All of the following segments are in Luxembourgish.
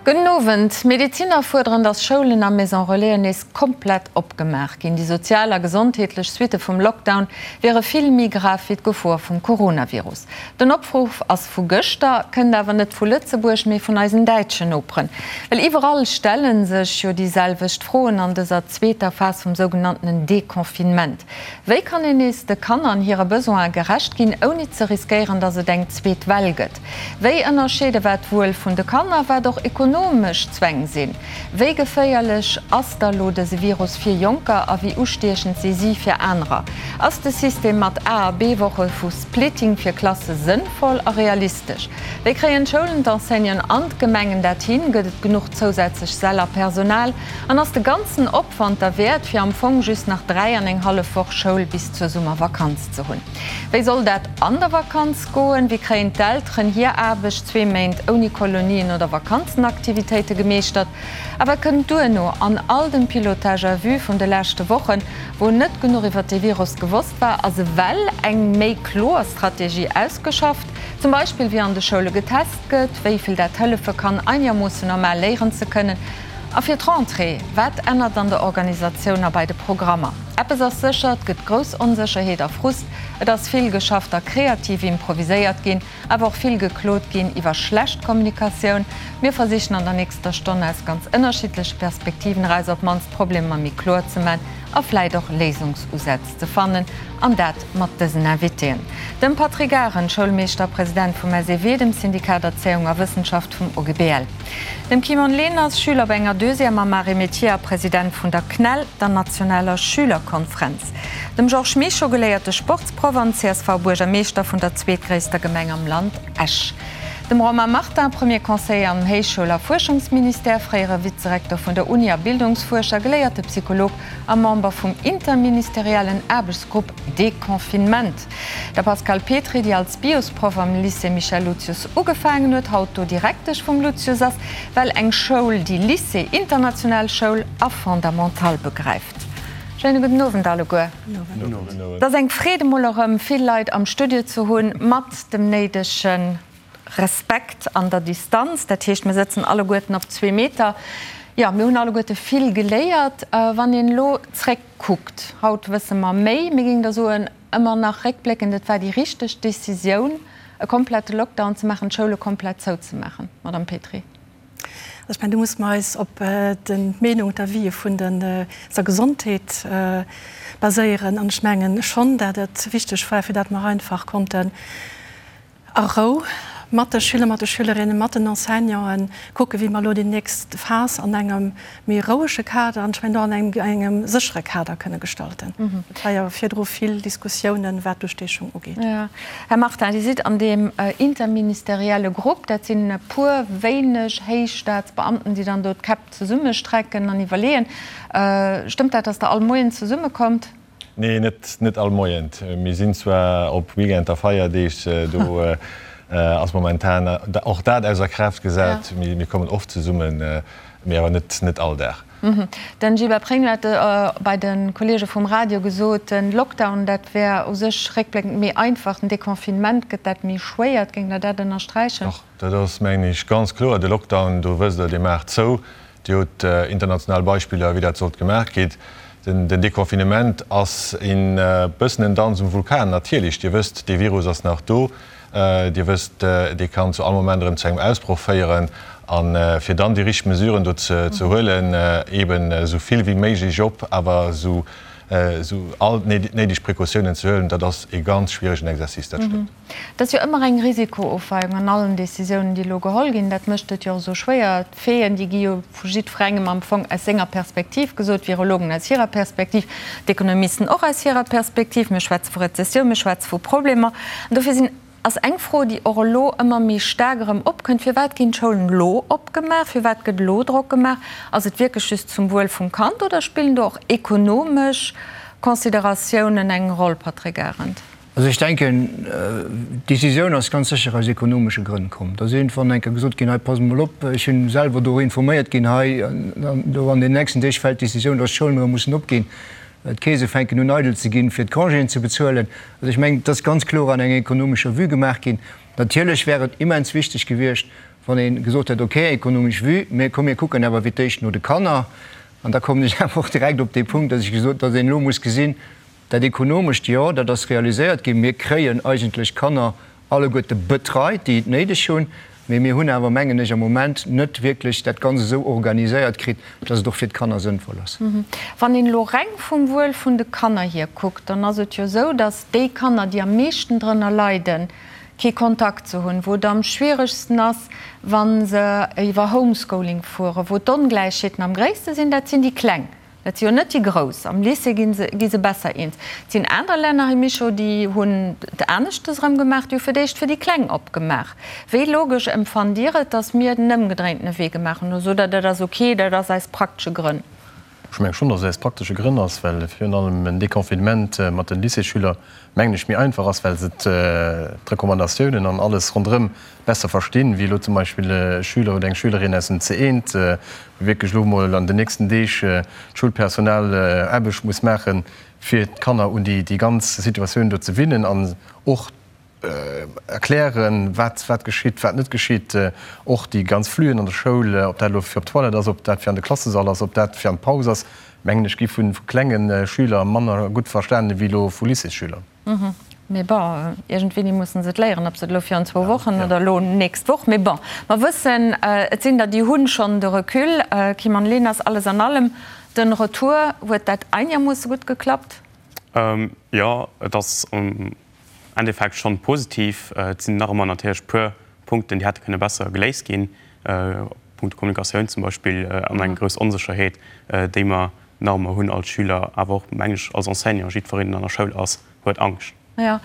Gudden Owend. D'Medeziner fuerderen, datt Schoulen a Maison Relaisen nees komplett opgemaach ginn. Déi sozial a gesondheetlech Suitte vum Lockdown wiere vill méi grav wéi d'Gefor vum Coronavirus. Den Opruff ass vu gëschter, kënnt awer net vu Lëtzebuerg, mee vun eisen däitschen Noperen. Well iwwerall stelle sech jo déi selwecht Froen an dëser zweeter Phas vum sougenanntenen Deconfinement. Wéi kann een nees de Kanner an hire Besoine gerecht ginn, ouni ze riskéieren, datt et eng zweet Well gëtt? Wéi ënnerscheede wat d'Wuel vun de Kanner, wat och ekonomesch Zwäng sinn? Wéi geféierlech ass da lo dëse Virus fir Jonker a wéi ustiechend si si fir anerer? Ass de System mat A a B-Woche vu Splitting fir Klasse sënnvoll a realistesch? Wéi kréien d'Schoulen, d'Enseignanten an d'Gemengen dat hin? Gëtt et genuch zousätzlech Säll a Personal? An ass de ganzen Opwand derwäert, fir am Fong just nach 3 an eng hallef Woch Schoul bis zur Summervakanz ze hunn? Wéi soll dat an der Vakanz goen? Wéi kréien d'Elteren hir Aarbecht zwee Méint ouni Kolonien oder Vakanzenaktivitéite gemeeschtert? A wat kënnt duerno an all dem Pilotage à vue vun de leschte Wochen, wou net genuch iwwer de Virus gewosst war? Ass ewell eng méi kloer Strategie ausgeschafft, zum Beispill wéi an de Schoule getest gëtt, wéi vill dat hëllefe kann, einermoossen normal léieren ze kënnen? A fir d'Rentrée, wat ännert an der Organisatioun a bei de Programmer? Eppes ass sécher, et gëtt grouss Onsécherheet a Frust. Et ass vill geschafft a kreativ improviséiert ginn, awer och vill geklot ginn iwwer schlecht Kommunikatioun. Mir versichen an der nächster Stonn aus ganz ënnerschiddleche Perspektiven eraus op d'mannst d'Problemer méi kloer ze man a vläit och Léisungsusätz ze fannen. An dat mat dësen Invitéen, dem Patrick Arendt, Schoulmeeschter a President vum SEW, dem Syndikat Erzéiung a Wëssenschaft vum OGBL, dem Kimon Leners, Schüler op enger Deuxième am Arts et Métiers a President vun der CNEL, der nationaler Schülerkonfrenz, dem Georges Mischo, geléierte Sportsproff an CSV-Buergermeeschter vun der zweetgréisster Gemeng am Land, Esch, dem Romain Martin, Premier Conseiller am Héichschoul a Fuerschungsministère, fréiere Vizerektor vun der Uni a Bildungsfuerscher, geléierte Psycholog a Member vum interministeriellen Aarbechtsgrupp Deconfinement. Der Pascale Petry, déi als Biosproff am Lycée Michel Lucius ugefaangen huet, haut do Direktesch vum Lucius ass, well eng Schoul, déi Lycée, international Schoul a Fondamental begräift. Schéine gudden Owend alleguer. Et ass eng Freed emol erëm vill Leit am Studio ze hunn, mat dem néidege Respekt an der Distanz. Dat heescht, mir sëtzen alleguerten op zwee Meter. Jo, mir hunn alleguerte vill geléiert. Wann een elo zréckkuckt, haut wësse mer méi, mir géingen da soen, ëmmer nach réckbléckend, et war déi richteg Decisioun, e komplette Lockdown ze maachen, d'Schoule komplett zouzemaachen, Madamm Petry. Also ech mengen, do musse mer eis op d'Meenung, d'Avisë vun der Gesondheet baséieren. An ech mengen schonn, dat et wichteg war, fir dat mer einfach konnten a Rou mat de Schüler, mat de Schülerinnen, mat den Enseignanten kucken, wéi mer elo déi nächst Phas an engem méi rouege Kader an ech mengen och an engem séchere Kader kënne gestalten. Et war jo virdru vill Diskussiounen, wat d'Ustiechung ugeet. Här Martin, Dir sidd an deem interministerielle Grupp, dat sinn e puer wéineg héich Staatsbeamten, déi dann do d'Käpp zesummestrecken an iwwerleeën. Stëmmt dat, datt Der all Moien zesummekommt? Nee, net, net all Moien. Mir sinn zwar op Weekend a Feierdeeg, do ass momentan och dat ausser Kraaft gesat. Mir kommen oft zesummen, mee awer net, net all Dag. Den Gilbert Pregno hat bei de Kolleege vum Radio gesot, den Lockdown, dat wär u sech réckbléckend méi einfach, den Deconfinement gëtt dat méi schwéier. Géingt Der dat ënnersträichen? Dach, dat ass, mengen ech, ganz kloer. De Lockdown, do wësst Der, Dir maacht zou, Dir hutt international Beispiller, wéi dat sollt gemaach gitt. Den Deconfinement ass e bëssen en Danz um Vulkan. Natierlech, Dir wësst, dee Virus ass nach do. Dir wësst, dee kann zu all Moment erëm zu engem Ausbroch féieren. A fir dann déi richteg Mesuren do ze huelen, eeben esou vill wéi méiglech op, awer esou all néideg Precautiounen ze huelen, dat ass e ganz schwieregen Exercice, dat stëmmt. Et ass jo ëmmer eng Risikoofweiung an allen Décisiounen, déi elo geholl ginn. Dat mécht et jo och esou schwéier. D'Faiten, déi gi jo vu jiddwerengem am Fong aus senger Perspektiv gesot, d'Virologen aus hirer Perspektiv, d'Ekonomisten och aus hirer Perspektiv. Mir schwätze vu Rezessioun, mir schwätze vu Problemer. An dofir sinn, ass eng Fro, déi och elo ëmmer méi staark erëm opkënnt, Firwat ginn d'Schoulen elo opgemaach? Firwat gëtt elo Drock gemaach? Ass et wierklech just zum Wuel vum Kand oder spillen do och ekonomesch Consideratiounen eng Roll, Patrick Arendt? Also ech denken, d'Decisioun ass ganz sécher aus ekonomesche Grënn komm. Da ass iergendwann eng Kéier gesot ginn, hei passt mol op, ech hunn selwer do informéiert ginn, hei do an den nächsten Deeg fält d'Decisioun, datt d'Schoulen erëm mussen opginn, d'Keese fänken un eidel ze ginn, fir d'Congéen ze bezuelen. Also ech mengen, et ass ganz kloer an enger ekonomescher Vue gemaach ginn. Natierlech wär et immens wichteg gewiescht,. Wann ee gesot hätt, okay, ekonomesch Vue, mä komm mir kucken awer fir d'éischt no de Kanner. An da kommen ech awer och direkt op dee Punkt, datt ech gesot, datt een elo muss gesinn, dat Ekonomescht, jo, dat ass realiséiert ginn, mir kréien eigentlech d'Kanner alleguerte betreit, déi et néideg hunn, mä mir hunn awer, mengen ech, am Moment net wierklech dat Ganzt esou organiséiert kritt, datt et och fir d'Kanner sënnvoll ass. Wann een elo reng vum Wuel vun de Kanner hier kuckt, dann ass et jo esou, datt déi Kanner, déi am meeschten drënner leiden, kee Kontakt ze hunn, wou et am schwieregsten ass, wa se iwwer Homeschooling fueren, wou d'Ongläichheeten am gréisste sinn, dat sinn déi Kleng. Dat si jo net déi Grouss. Am Lycée gi se, gi se besser eens. Et sinn aner Länner, Här Mischo, déi hunn et aneschtes erëm gemaach, déi hu fir d'éischt fir déi Kleng opgemaach. Wéi logesch empfannt Dir et, datt mir den ëmgedréintene Wee gemaach hunn? Oder sot Der, dat ass ok, dat ass aus praktesche Grënn? Ech menge schonn, datt et aus praktesche Grënn ass, well virun allem en Deconfinement mat de Lycéesschüler, mengen ech, méi einfach ass, well se d'Recommandatiounen an alles ronderëm besser verstinn, wéi elo zum Beispill e Schüler oder eng Schülerin aus dem C1, wou wierklech elo emol an den nächsten Deeg d'Schoulpersonal Aarbecht muss maachen, fir d'Kanner un déi ganz Situatioun do ze winnen an och erklären, wat wat geschitt, wat net geschitt, och déi ganz Flüen an der Schoul, ob dat elo fir op d'Toilette ass, ob dat fir an de Klassesall ass, ob dat fir an d'Paus ass, mengen ech, gi vu klenge Schüler manner gutt verstanen ewéi elo vu Lycéesschüler. Mee bon, iergendwéini mussen se et léieren, ob se et elo virun zwou Wochen oder elo nächst Woch. Mee bon, mer wëssen, et sinn der, déi hunn schonn de Recul. Kim an Lenas, alles an allem, den Retour, huet dat einermoosse gutt geklappt? Jo, et ass am Endeffekt schonn positiv. Et sinn nach ëmmer natierlech puer Punkten, déi hätte kënne besser geléist ginn, Punkto Kommunikatioun zum Beispill an eng grouss Onsécherheet, déi mer nach ëmmer hunn als Schüler, awer och, meng ech, als Enseignant. Jiddwereen, deen an der Schoul ass, huet Angscht. Jo.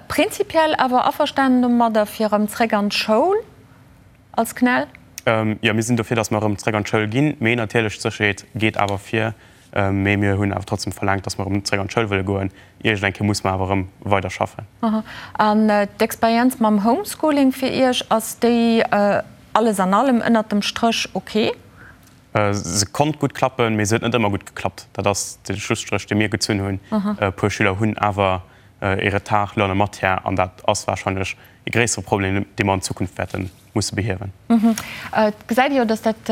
Prinzipiell awer averstanen domadder, fir erëm zréck an d'Schoul? Als CNEL? Jo, mir sinn dofir, datt mer erëm zréck an d'Schoul ginn. Mee natierlech, d'Sécherheet geet awer vir. Mee mir hunn awer trotzdem verlaangt, datt mer erëm zréck an d'Schoul wëlle goen. Iergend eng Kéier muss mer awer erëm weider schaffen. An d'Experienz mam Homeschooling fir Iech, ass déi alles an allem ënnert dem Stréch ok? Se konnt gutt klappen, mee se huet net ëmmer gutt geklappt. Dat ass de Schlusstréch, dee mir gezunn hunn. E puer Schüler hunn awer e Retard lo an der Matière an dat ass warscheinlech e gréissere Problem, dee mer an Zukunft wäerte musse behiewen. Et gesäit ee jo, datt dat,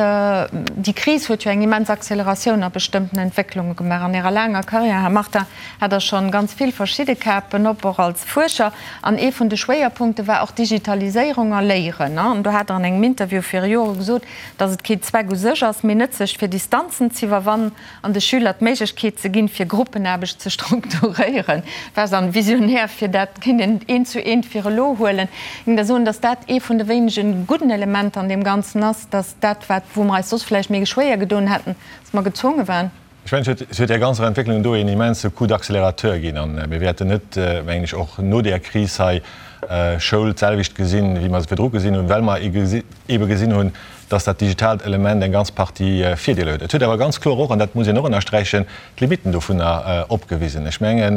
déi Kris huet jo eng immens Acceleratioun a bestëmmten Entwécklunge gemaach. An Ärer laanger Karriär, Här Martin, hat Der schonn ganz vill verschidde Kapen op, och als Fuerscher. An ee vun de Schwéierpunkte war och Digitaliséierung a Léieren. An do hat Der an engem Interview viru Jore gesot, datt et kee Zweck u sech ass, mee nëtzlech fir Distanzen z'iwwerwannen an de Schüler d'Méiglechkeet ze ginn, fir Gruppenaarbecht ze strukturéieren. War se an visionär, fir dat kéint een eent zu eent fir elo huelen. Ech géing da soen, datt dat ee vun de wéinege gudden Elementer an deem Ganzen ass, datt dat, wat, wou mer eis soss vläicht méi schwéier gedoen hätten, datt mer gezwonge waren. Ech mengen, et huet där ganzer Entwécklung do een immense Coup d'accélérateur ginn. A mir wäerten net, mengen ech, och no där Kris hei Schoul d'selwecht gesinn, wéi mer se virdru gesinn hunn, well mer eebe gesinn hunn, dass dat digitaalt Element eng ganz Partie Virdeeler huet. Et huet awer ganz kloer och, an dat muss een och ënnersträichen, d'Limitten dovunner opgewisen. Ech mengen,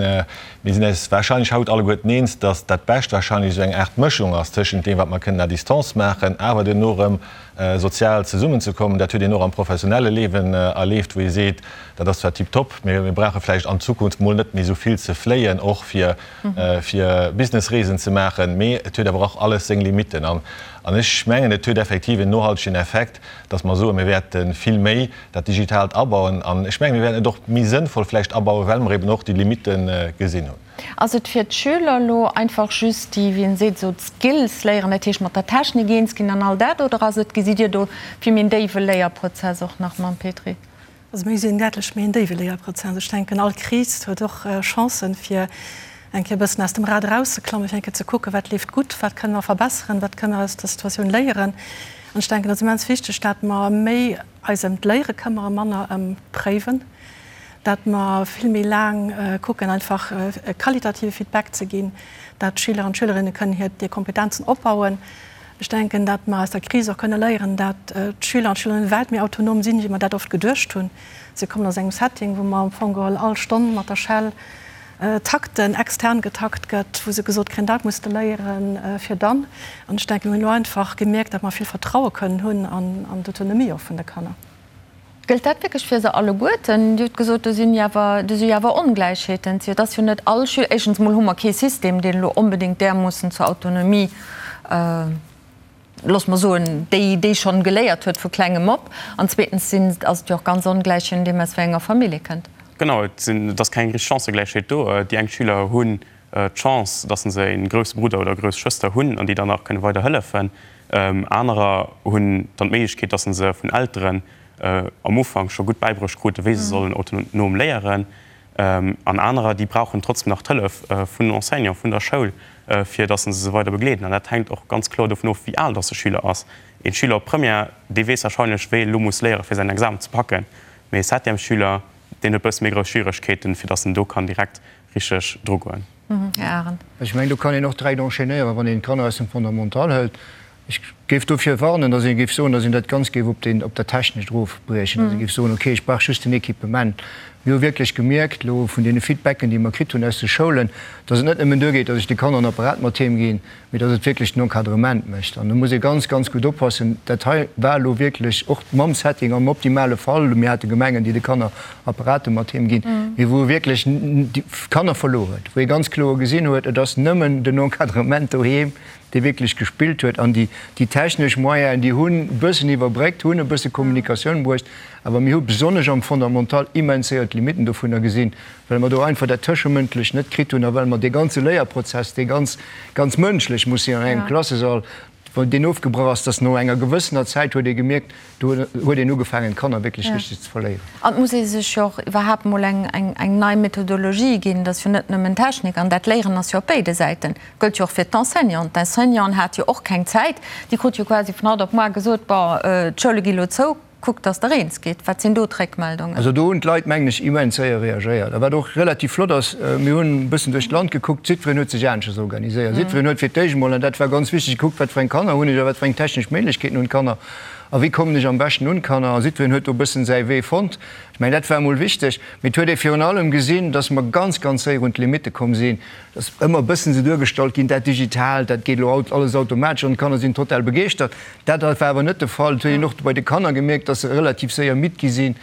mir sinn eis wahrscheinlech haut alleguerten eens, dass dat Bescht wahrscheinlech esou eng Aart Mëschung ass tëschent deem, wat mer kënnen à distance maachen, awer duerno erëm sozial zesummenzekommen. Dat huet een och am professionelle Liewen erleeft, wou ee seet, dat ass zwar tiptop, mä mir brauche vläicht an Zukunft mol net méi esou vill ze fléien, och fir fir Businessreesen ze maachen, mee et huet awer och alles seng Limitten. An ech mengen, et huet effektiv en nohaltegen Effekt, dass mer soen, mir wäerte vill méi dat Digitaalt abauen. An ech mengen, mir wäerten et och méi sënnvoll vläicht abauen, well mer eben och déi Limitte gesinn hunn. Ass et fir d'Schüler elo einfach just déi, wéi een seet, esou d'Skills léieren, dat heescht mat der Technik eens ginn an all dat, oder ass et, gesitt Dir do vill méi en déiwe Léierprozess och nach mam Petry? Also mir gesinn däitlech méi en déiwe Léierprozess. Ech denken, all Kris huet och Chancen, fir eng Kéier e bëssen aus dem Rad erauszeklammen, fir eng Kéier ze kucken, wat leeft gutt, wat kënne mer verbesseren, wat kënne mer aus der Situatioun léieren. An ech denken, et ass immens wichteg, dat mer méi eis ëm d'Léiere këmmere, manner ëm d'Préiwen, dat mer vill méi laang kucken, einfach e qualitative Feedback ze ginn, dat d'Schüler an d'Schülerinne kënnen hir Kompetenzen opbauen. Ech denken, dat mer aus der Kris och kënne léieren, dat d'Schüler an d'Schülerinne wäit méi autonom sinn, wéi mer dat oft geduecht hunn. Si kommen aus engem Setting, wou mer am Fong geholl all Stonn mat der Schell takten, extern getakt gëtt, wou se gesot kréien, dat muss de léieren, fir dann. An ech denken, mir hunn elo einfach gemierkt, dat mer vill Vertraue kënnen hunn an d'Autonomie och vun de Kanner. Gëllt dat wierklech fir se alleguerten? Dir hutt gesot, do sinn jo awer, do si jo awer Ongläichheeten. Et ass jo net all Schüler, éischtens emol hu mer kee System, deen elo onbedéngt därmoossen zur Autonomie. loosse mer soen, déi, déi schonn geléiert huet vu klengem op. An zweetens sinn, ass et jo och ganz ongläich, je nodeem aus wéi enger Famill ee kënnt. Genau, et sinn, et ass keng richteg Chancëgläichheet do. Déi eng Schüler hunn d'Chance, dass se e grousse Brudder oder grouss Schwëster hunn an déi dann nach kënne weider hëllefen. Anerer hunn dann d'Méiglechkeet, dass se vun Elteren am Ufank scho gutt bäibruecht kruten, wéi se sollen autonom léieren. An anerer, déi brauchen trotzdem nach d'Hëllef vun den Enseignanten, vun der Schoul, fir dass se se weider begleeden. An dat hänkt och ganz kloer dovun of, wéi al dass de Schüler ass. Ee Schüler op Première, dee weess warscheinlech, wéi e lo muss léieren, fir säin Examen ze packen. Mee e Septièmesschüler, deen huet e bësse méi grouss Schwieregkeeten, fir dass en do kann direkt richteg drugoen. Här Arendt. Ech mengen, do kann een och direkt enchaînéieren, wann een d'Kanner aus dem Fondamental hëlt. Ech géif dofir warnen, datt ee géif soen, datt een dat Ganzt géif op deen, op dat Technescht erofbriechen, datt ee géif soen, okay, ech brauch just den Equipement. Mir hu wierklech gemierkt elo vun deene Feedbacken, déi mer kritt hunn aus de Schoulen, datt et net nëmmen duergeet, datt ech de Kanner en Apparat mat heem ginn, mee datt et wierklech den Encadrement mécht. An do muss ee ganz, ganz gutt oppassen. Dat hei war elo wierklech och mam Setting am optimale Fall. Mir hate Gemengen, déi de Kanner Apparate mat heem ginn, mee wou e wierklech déi Kanner verluer huet, wou ee ganz kloer gesinn huet, et ass nëmmen den Encadrement doheem, dee wierklech gespillt huet an déi déi technesch Moyenen, déi hunn e bëssen iwwerbréckt, hunn e bësse Kommunikatioun bruecht, awer mir hu besonnesch am Fondamental immens séier d'Limitten dovunner gesinn, well mer do einfach dat Tëschemëndlecht net kritt hunn a well mer dee ganze Léierprozess, dee ganz, ganz mënschlech muss sinn an engem Klassesall, wou deen ofgebrach ass, dass no enger gewëssener Zäit huet ee gemierkt, Do huet een ugefaangen, d'Kanner wierklech richteg ze verléieren. An et muss ee sech jo och iwwerhaapt emol eng nei Methodologie ginn. Dat ass jo net nëmmen Technik. An dat Léieren ass jo op béide Säiten. Gëllt jo och fir d'Enseignanten. D'Enseignanten hate jo och keng Zäit. Déi krute jo quasi vun haut op muar gesot, Bon, d'Schoule gi lo zou, kuckt, datt Der eens gitt. Wat sinn do d'Réckmeldungen? Also do hunn d'Leit, mengen ech, immens séier reagéiert. A wat och relativ flott ass, mir hunn e bëssen duerch d'Land gekuckt, jiddwereen huet sech aneschters organiséiert. Jiddwereen huet fir d'éischt emol, an dat war ganz wichteg, gekuckt, wat fir eng Kanner hunn ech a wat fir eng technesch Méiglechkeeten hunn d'Kanner. A wéi kommen ech am beschten un d'Kanner? A jiddwereen huet do e bëssen säi Wee fonnt. Ech mengen, dat war emol wichteg. Mee et huet ee virun allem gesinn, dass mer ganz, ganz séier un d'Limitte komm sinn. Et ass ëmmer e bëssen esou duergestallt ginn, dat Digitaalt, dat geet elo alles automatesch an d'Kanner sinn total begeeschtert. Dat war awer net de Fall. Et huet een och bei de Kanner gemierkt, dass se relativ séier midd gi sinn.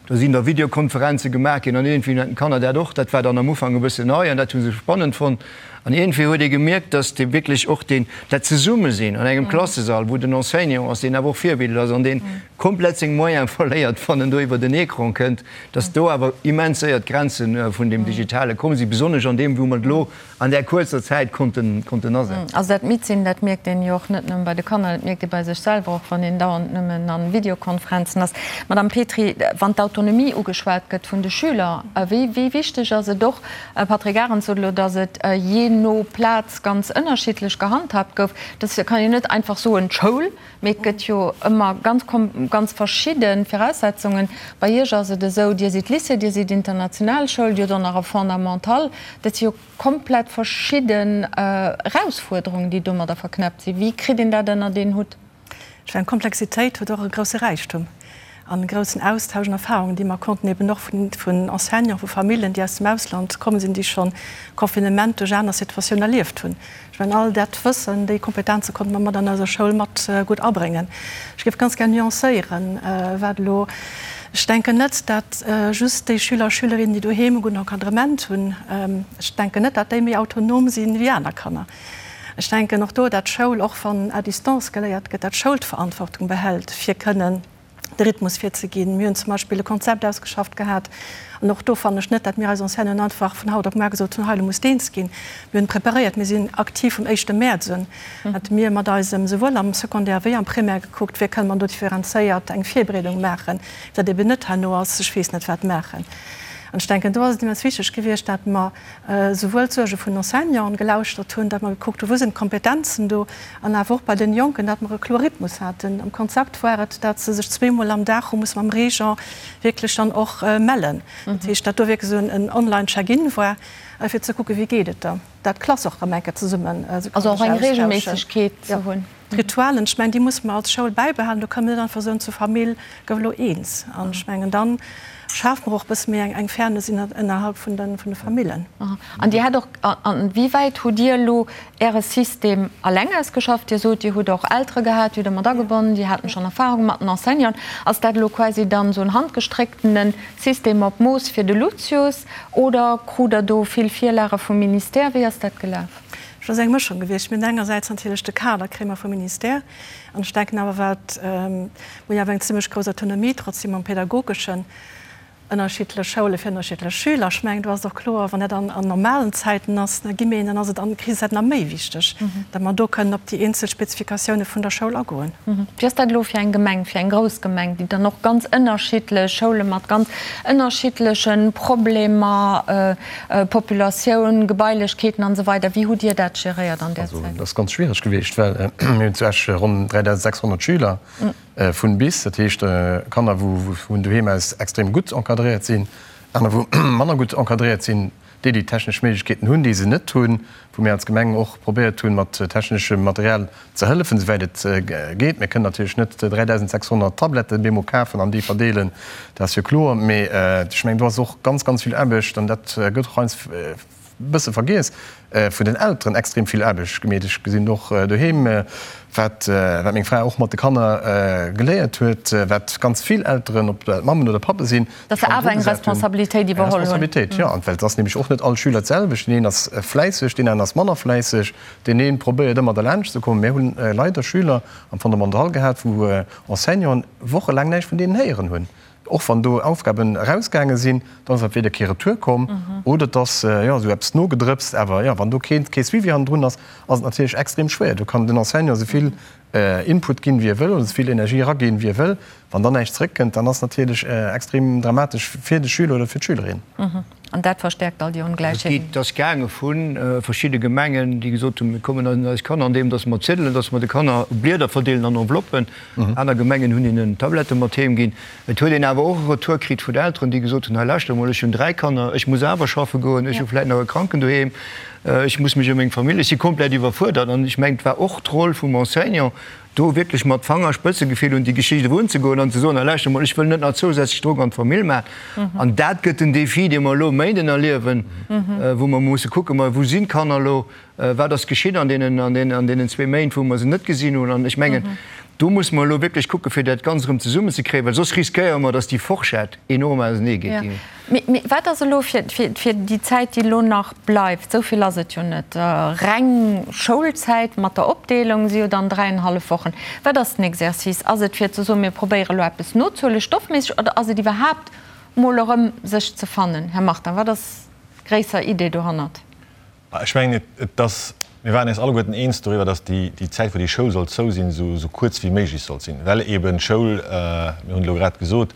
Do sinn da Videokonferenze gemaach ginn an iergendwéi hunn d'Kanner dat och, dat war dann am Ufank e bëssen nei an dat hu se spannend fonnt. An iergendwéi huet ee gemierkt, dass dee wierklech och deen, dat Zesummesinn an engem Klassesall, wou den Enseignant ass, deen awer och Virbild ass an deen komplett seng Moyene verléiert, wann en do iwwer den Ecran kënnt, dass do awer immens séier d'Grenze vun deem Digitale komm sinn, besonnesch an deem, wou mer et elo an där kuerzer Zäit konnten, konnten asetzen. Also dat Midd-sinn, dat mierkt een jo och net nëmme bei de Kanner, dat mierkt ee bei sech selwer och, wann een dauernd nëmmen a Videokonferenzen ass. Madame Petry, wann d'Autonomie ugeschwat gëtt vun de Schüler, wéi, wéi wichteg ass et och, Patrick Arendt sot elo, datt et jee no Plaz ganz ënnerschiddlech gehandhaabt gouf. Dat kann een net einfach soen, d'Schoul, mee et gëtt jo ëmmer ganz, ganz verschidde Viraussetzungen. Bei Iech ass et esou, Dir sidd Lycée, Dir sidd international Schoul, Dir hutt och nach e Fondamental. Dat si jo komplett verschidden Erausfuerderungen, déi domadder verknäppt sinn. Wéi kritt een dat ënnert een Hutt? Ech mengen, Komplexitéit huet och e grousse Räichtum an e groussen Austausch an Erfahrungen, déi mer konnten eben och vun Enseignanten, vu Famillen, déi aus dem Ausland komm sinn, déi schonn Confinement duerch aner Situatiounen erlieft hunn. Ech mengen, all dat Wëssen, déi Kompetenze konnte mer mat an eiser Schoul mat gutt abréngen. Ech géif ganz gär nuancéieren, wat elo, ech denken net, dat just déi Schüler a Schülerinnen, déi doheem e gudden Encadrement hunn, ech denken net, dat déi méi autonom sinn wéi aner Kanner. Ech denken och do, dat d'Schoul, och wann à distance geléiert gëtt, dat d'Schoul d'Verantwortung behält, fir kënnen de Rhythmus virzeginn. Mir hunn zum Beispill e Konzept ausgeschafft gehat, an och do fannen ech net, dat mir eis Enseignanten einfach vun haut op muar gesot hunn, hei, elo muss eens ginn. Mir hunn preparéiert, mir sinn aktiv vum éischte Mäerz un, dat mir mat eisem, souwuel am Secondaire wéi am Primaire gekuckt, wéi kënne mer do differenzéiert eng Virbereedung maachen, dat eben net herno ass, ech weess net wat maachen. An ech denken, do ass et immens wichteg gewiescht, dat mer souwuel d'Suerge vun den Enseignanten gelauschtert hunn, datt mer gekuckt hunn, wou sinn d'Kompetenzen do, an awer och bei den Jonken, datt mer e kloer Rhythmus haten. Am Konzept war et, datt se sech zweemol am Dag hu musse mam Régent wierklech dann och mellen. Dat heescht, datt do wierklech esou en Online-Check-in war, fir ze kucken, wéi geet et der, datt d'Klass och erëm eng Kéier zesummen se Also och eng Reegelméissegkeet ze hunn. D'Ritualen, ech mengen, déi musse mer als Schoul bäibehalen. Do kënne mer net einfach soen, zur Famill gouf elo eens. An ech mengen, da schafe mer och e bësse méi eng Fairness innerhalb vun de Famillen. An Dir hat och, an wéi wäit hutt Dir elo Äre System alleng ausgeschafft? Dir sot, Dir hutt och Eltere gehat, déi hutt Der mat agebonnen, déi haten schonn Erfahrung mat den Enseignanten. Ass dat elo quasi dann esou en handgestrécktene System op Mooss fir de Lucius oder krut Der do vill Virlage vum Ministère? Wéi ass dat gelaf? Et ass eng Mëschung gewiescht. Mir hunn engersäits natierlech de Kader kréie mer vum Ministère an ech denken awer wat, mir hunn awer eng zimlech grouss Autonomie trotzdem am Pädagogeschen, ënnerschiddlech Schoule fir ënnerschiddlech Schüler. Ech mengen, do ass et och kloer, wann dat an normalen Zäiten ass, da gi mir een, dann ass et an Krisenzäiten nach méi wichteg, datt mer do kënnen op déi eenzel Spezifikatioune vun der Schoul agoen. Wéi ass dat elo fir eng Gemeng, fir eng grouss Gemeng, déi dann och ganz ënnerschiddlech Schoule mat ganz ënnerschiddleche Problemer, Populatioun, Gebailechkeeten an esou weider, wéi hutt Dir dat geréiert an där Zäit? Also, dat ass ganz schwiereg gewiescht, well mir hunn zu Esch ronn 3.600 Schüler vun bis, dat heescht Kanner, wou vun doheem aus extrem gutt encadréiert sinn, aner wou manner gutt encadréiert sinn, déi déi technesch Méiglechkeeten hunn, déi se net hunn, wou mir als Gemeng och probéiert hunn, mat techneschem Material ze hëllefen, esouwäit et geet. Mir kënnen natierlech net 3.600 Tabletten bemol kafen an déi verdeelen, dat ass jo kloer. Mee ech mengen, do ass och ganz, ganz vill Aarbecht, an dat gëtt och heiansdo e bësse vergiess, vun den Elteren extrem vill Aarbecht gemeet. Ech gesinn och doheem, wat meng Fra och mat de Kanner geléiert huet, wat ganz vill Elteren, ob dat Mammen oder Pappe sinn, Dass se awer eng Responsabilitéit iwwerholl hunn. Eng Responsabilitéit, jo. An well et ass nämlech och net all Schüler d'selwecht. Deen een ass fläisseg, deen aneren ass manner fläisseg. Deen ee probéiert ëmmer derlaanscht ze kommen. Mir hunn leider Schüler am Fondamental gehat, wou Enseignanten wochelaang näischt vun deenen héieren hunn. Och wann do Aufgaben erausgaange sinn, dann ass entweder kee Retour komm oder et ass, jo, esou eppes nogedrëpst. Awer jo, wann do kee Suivi hannendrun ass, ass et natierlech extrem schwéier. Do kann den Enseignant esou vill Input ginn, wéi e wëll, oder esou vill Energie eraginn, wéi e wëll. Wann dann näischt zeréckkënnt, dann ass natierlech extrem dramatesch fir de Schüler oder fir d'Schülerin. An dat verstäerkt all déi Ongläichheeten. Et ass gaange vu verschidde Gemengen, déi gesot hunn, mir kommen un eis Kanner, andeem datt mer ziddelen, datt mer de Kanner Blieder verdeelen an Enveloppen. Aner Gemengen hunn hinnen Tablette mat heem ginn. Et huet een awer och e Retour kritt vun Elteren, déi gesot hunn, hei lauschter emol, ech hunn 3 Kanner, ech muss awer schaffe goen, ech hu vläicht nach e Kranken doheem, ech muss mech ëm meng Famill, ech si komplett iwwerfuerdert. An ech mengen, et war och d'Roll vum Enseignant, do wierklech mat Fangerspëtzegefill un déi Geschicht erunzegoen an ze soen, hei lauschter emol, ech wëll net nach zousätzlech Drock an d'Famill maachen. An dat gëtt den Défi, dee mer elo e Méinden erliewen, wou mer musse kucken, ma wou sinn d'Kanner elo, Wat ass geschitt an deenen, an deenen, an deenen zwee Méint, wou mer se net gesinn hunn? An ech mengen, do musse mer elo wierklech kucken, fir dat Ganzt erëm zesummenzekréien, well soss riskéiere mer, dass déi Forschett enorm auseneegeet. Jo. Mee, mee wat ass elo fir, fir, fir déi Zäit, déi elo nach bleift, esou vill ass et jo net, reng Schoulzäit mat der Opdeelung si jo dann dräienhallef Wochen. Wat ass den Exercice? Ass et fir ze soen, mir probéiere elo eppes nozehuelen, stoffméisseg, oder ass et iwwerhaapt mol erëm sech ze fannen? Här Martin, wat ass d'gréisser Idee dohannert? Ech mengen, et ass, mir waren eis alleguerten eens doriwwer, datt déi Zäit, wou déi Schoul soll zou sinn, esou kuerz wéi méiglech sollt sinn, well eeben d'Schoul, mir hunn et elo grad gesot,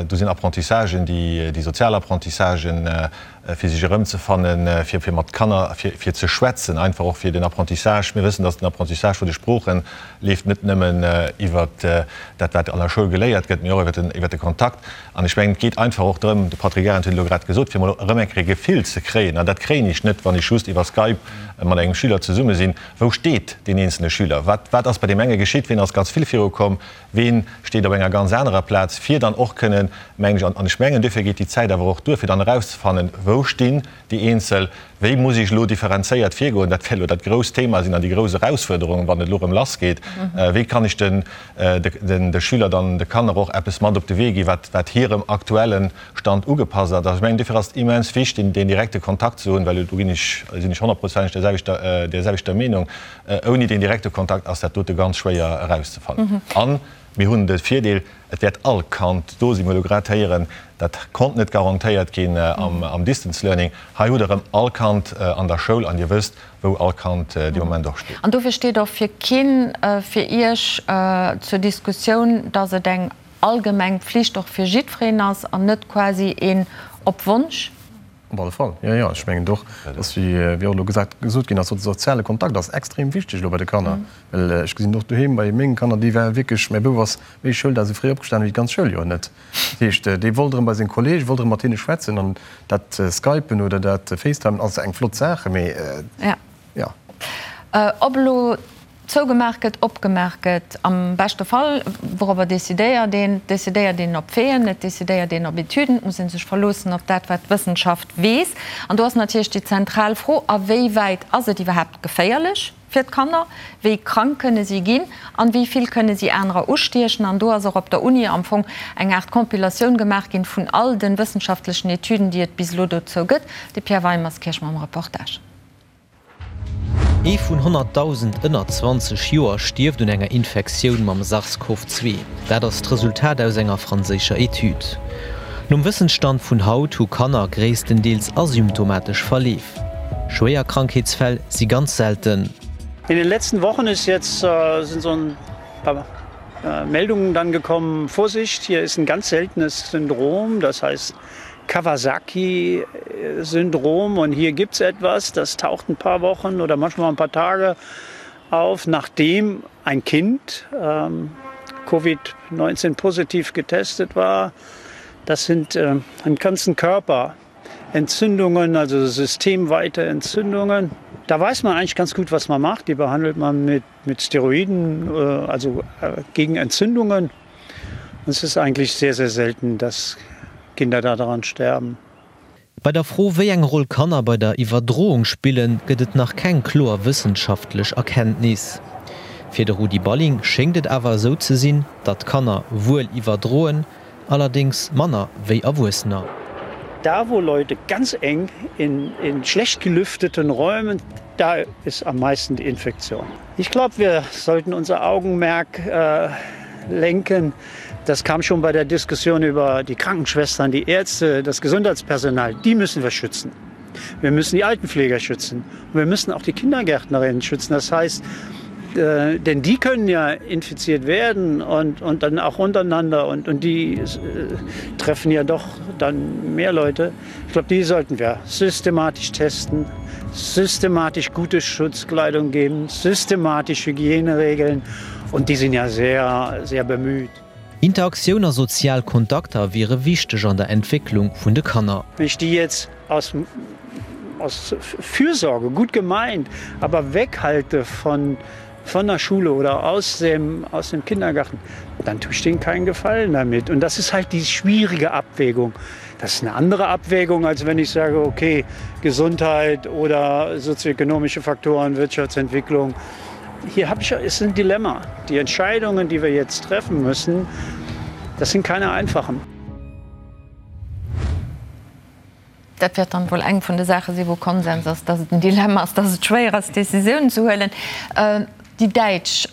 do sinn Apprentissagen, déi sozial Apprentissagen, fir sech erëmzefannen, fir mat Kanner, fir ze schwätzen, einfach och fir den Apprentissage. Mir wëssen, datt den Apprentissage vun de Sprooche leeft net nëmmen iwwert dat, wat an der Schoul geléiert gëtt, mee och iwwert de Kontakt. An ech mengen, et geet einfach och drëm, de Patrick Arendt huet et elo grad gesot, fir emol erëm eng Kéier e Gefill ze kréien, an dat kréien ech net, wann ech just iwwer Skype mat engem Schüler zesumme sinn, wou steet deen eenzele Schüler, wat, wat ass bei deem enge geschitt, ween ass ganz vill virukomm, ween steet op enger ganz anerer Plaz, fir dann och kënnen, mengen ech, an ech mengen, duerfir geet déi Zäit awer och duer, fir dann erauszefannen, wou stinn déi eenzel, wéi muss ech elo differenzéiert virgoen, dat wäert elo dat grousst Thema sinn an déi grouss Erausfuerderung, wann et elo erëm lassgeet, wéi kann ech den de Schüler dann, de Kanner och eppes mat op de Wee ginn, wat wat hirem aktuelle Stand ugepasst ass. Also ech mengen, duerfir ass et immens wichtig, deen direkte Kontakt ze hunn, well do ginn ech, sinn ech honnertprozenteg där selwechter, där selwechter Meenung, ouni deen direkte Kontakt ass dat dote ganz schwéier erauszefannen. An mir hunn de Virdeel, Et wäert all Kand do sinn. Mir hu elo grad héieren, dat konnt net garantéiert ginn am Distance Learning. Hei hutt Der erëm all Kand an der Schoul an Dir wësst, wou all Kand dee Moment och steet. An dofir steet och fir keen fir Iech zur Diskussioun, dass et eng allgemeng Pflicht och fir jiddwereen ass an net quasi een op Wonsch? Op alle Fall, jo, jo. Ech mengen och, dass, wéi och elo gesat, gesot ginn ass, de soziale Kontakt ass extrem wichteg elo bei de Kanner. Well ech gesinn och doheem bei menge Kanner, déi ware wierklech, mäi Bouf ass méi Schouldag esou fréi opgestanen wéi d'ganz Schouljoer net. Dat heescht, dee wollt erëm bei seng Kollege, wollt erëm mat hinne schwätzen. An dat Skypen oder dat Facetimen ass eng flott Saach, mee jo. Ob elo zougemaach gëtt, opgemaach gëtt, am beschte Fall, wourobber decidéiert een? Et decidéiert een op Faiten, et decidéiert een op Etüden, et muss ee sech verloossen op dat, wat d'Wëssenschaft weess. An do ass natierlech déi zentral Fro, A wéi wäit ass et iwwerhaapt geféierlech fir d'Kanner? Wéi krank kënne si ginn? An wéi vill kënne si anerer ustiechen? An do ass och op der Uni am Fong eng Aart Compilatioun gemaach ginn vun all de wëssenschaftlechen Etüden, déi et bis elo dozou gëtt. De Pierre Weimerskirch mam Reportage. Ee vun 100.000 ënner 20 Joer stierft un enger Infektioun mam SARS-CoV-2. Dat ass d'Resultat aus enger franséischer Etüd. Nom Wëssensstand vun haut hu Kanner gréisstendeels asymptomatesch Verleef. Schwéier Krankheetsfäll si ganz selten. In den letzten Wochen ist jetzt sind so ein paar Meldungen dann gekommen, Vorsicht, hier ist ein ganz seltenes Syndrom, das heißt Kawasaki-Syndrom und hier gibt es etwas, das taucht ein paar Wochen oder manchmal ein paar Tage auf, nachdem ein Kind ähm, Covid-19 positiv getestet war. Das sind äh, im ganzen Körper Entzündungen, also systemweite Entzündungen. Da weiß man eigentlich ganz gut, was man macht. Die behandelt man mit, mit Steroiden, äh, also äh, gegen Entzündungen. Und es ist eigentlich sehr, sehr selten, dass Kinder daran sterben. Bei der Fro, wéi eng Roll Kanner bei der Iwwerdroung spillen, gëtt et nach keng kloer wëssenschaftlech Erkenntnis. Fir de Rudi Balling schéngt et awer esou ze sinn, datt Kanner wuel iwwerdroen, allerdéngs manner wéi Erwuessener. Da wo Leute ganz eng in in schlecht gelüfteten Räumen, da ist am meisten die Infektion. Ich glaube, wir sollten unser Augenmerk äh, lenken. Das kam schon bei der Diskussion über die Krankenschwestern, die Ärzte, das Gesundheitspersonal. Die müssen wir schützen. Wir müssen die Altenpfleger schützen. Und wir müssen auch die Kindergärtnerinnen schützen. Das heißt, äh, denn die können ja infiziert werden und, und dann auch untereinander und, und die äh, treffen ja doch dann mehr Leute. Ich glaube, die sollten wir systematisch testen, systematisch gute Schutzkleidung geben, systematisch Hygieneregeln und die sind ja sehr, sehr bemüht. Interaktioun a sozial Kontakter wiere wichteg an der Entwécklung vun de Kanner. Wenn ich die jetzt aus, aus Fürsorge gut gemeint, aber weghalte von, von der Schule oder aus dem, aus dem Kindergarten, dann tue ich denen keinen Gefallen damit. Und das ist halt die schwierige Abwägung. Das ist eine andere Abwägung, als wenn ich sage, okay, Gesundheit oder sozioökonomische Faktoren, Wirtschaftsentwicklung. Hier habe ich ist ein Dilemma. Die Entscheidungen, die wir jetzt treffen müssen, das sind keine einfachen. Dat wäert dann wuel eng vun de Saache sinn, wou Konsens ass, dass et en Dilemma ass, dass et schwéier ass, Décisiounen ze huelen. Déi Däitsch,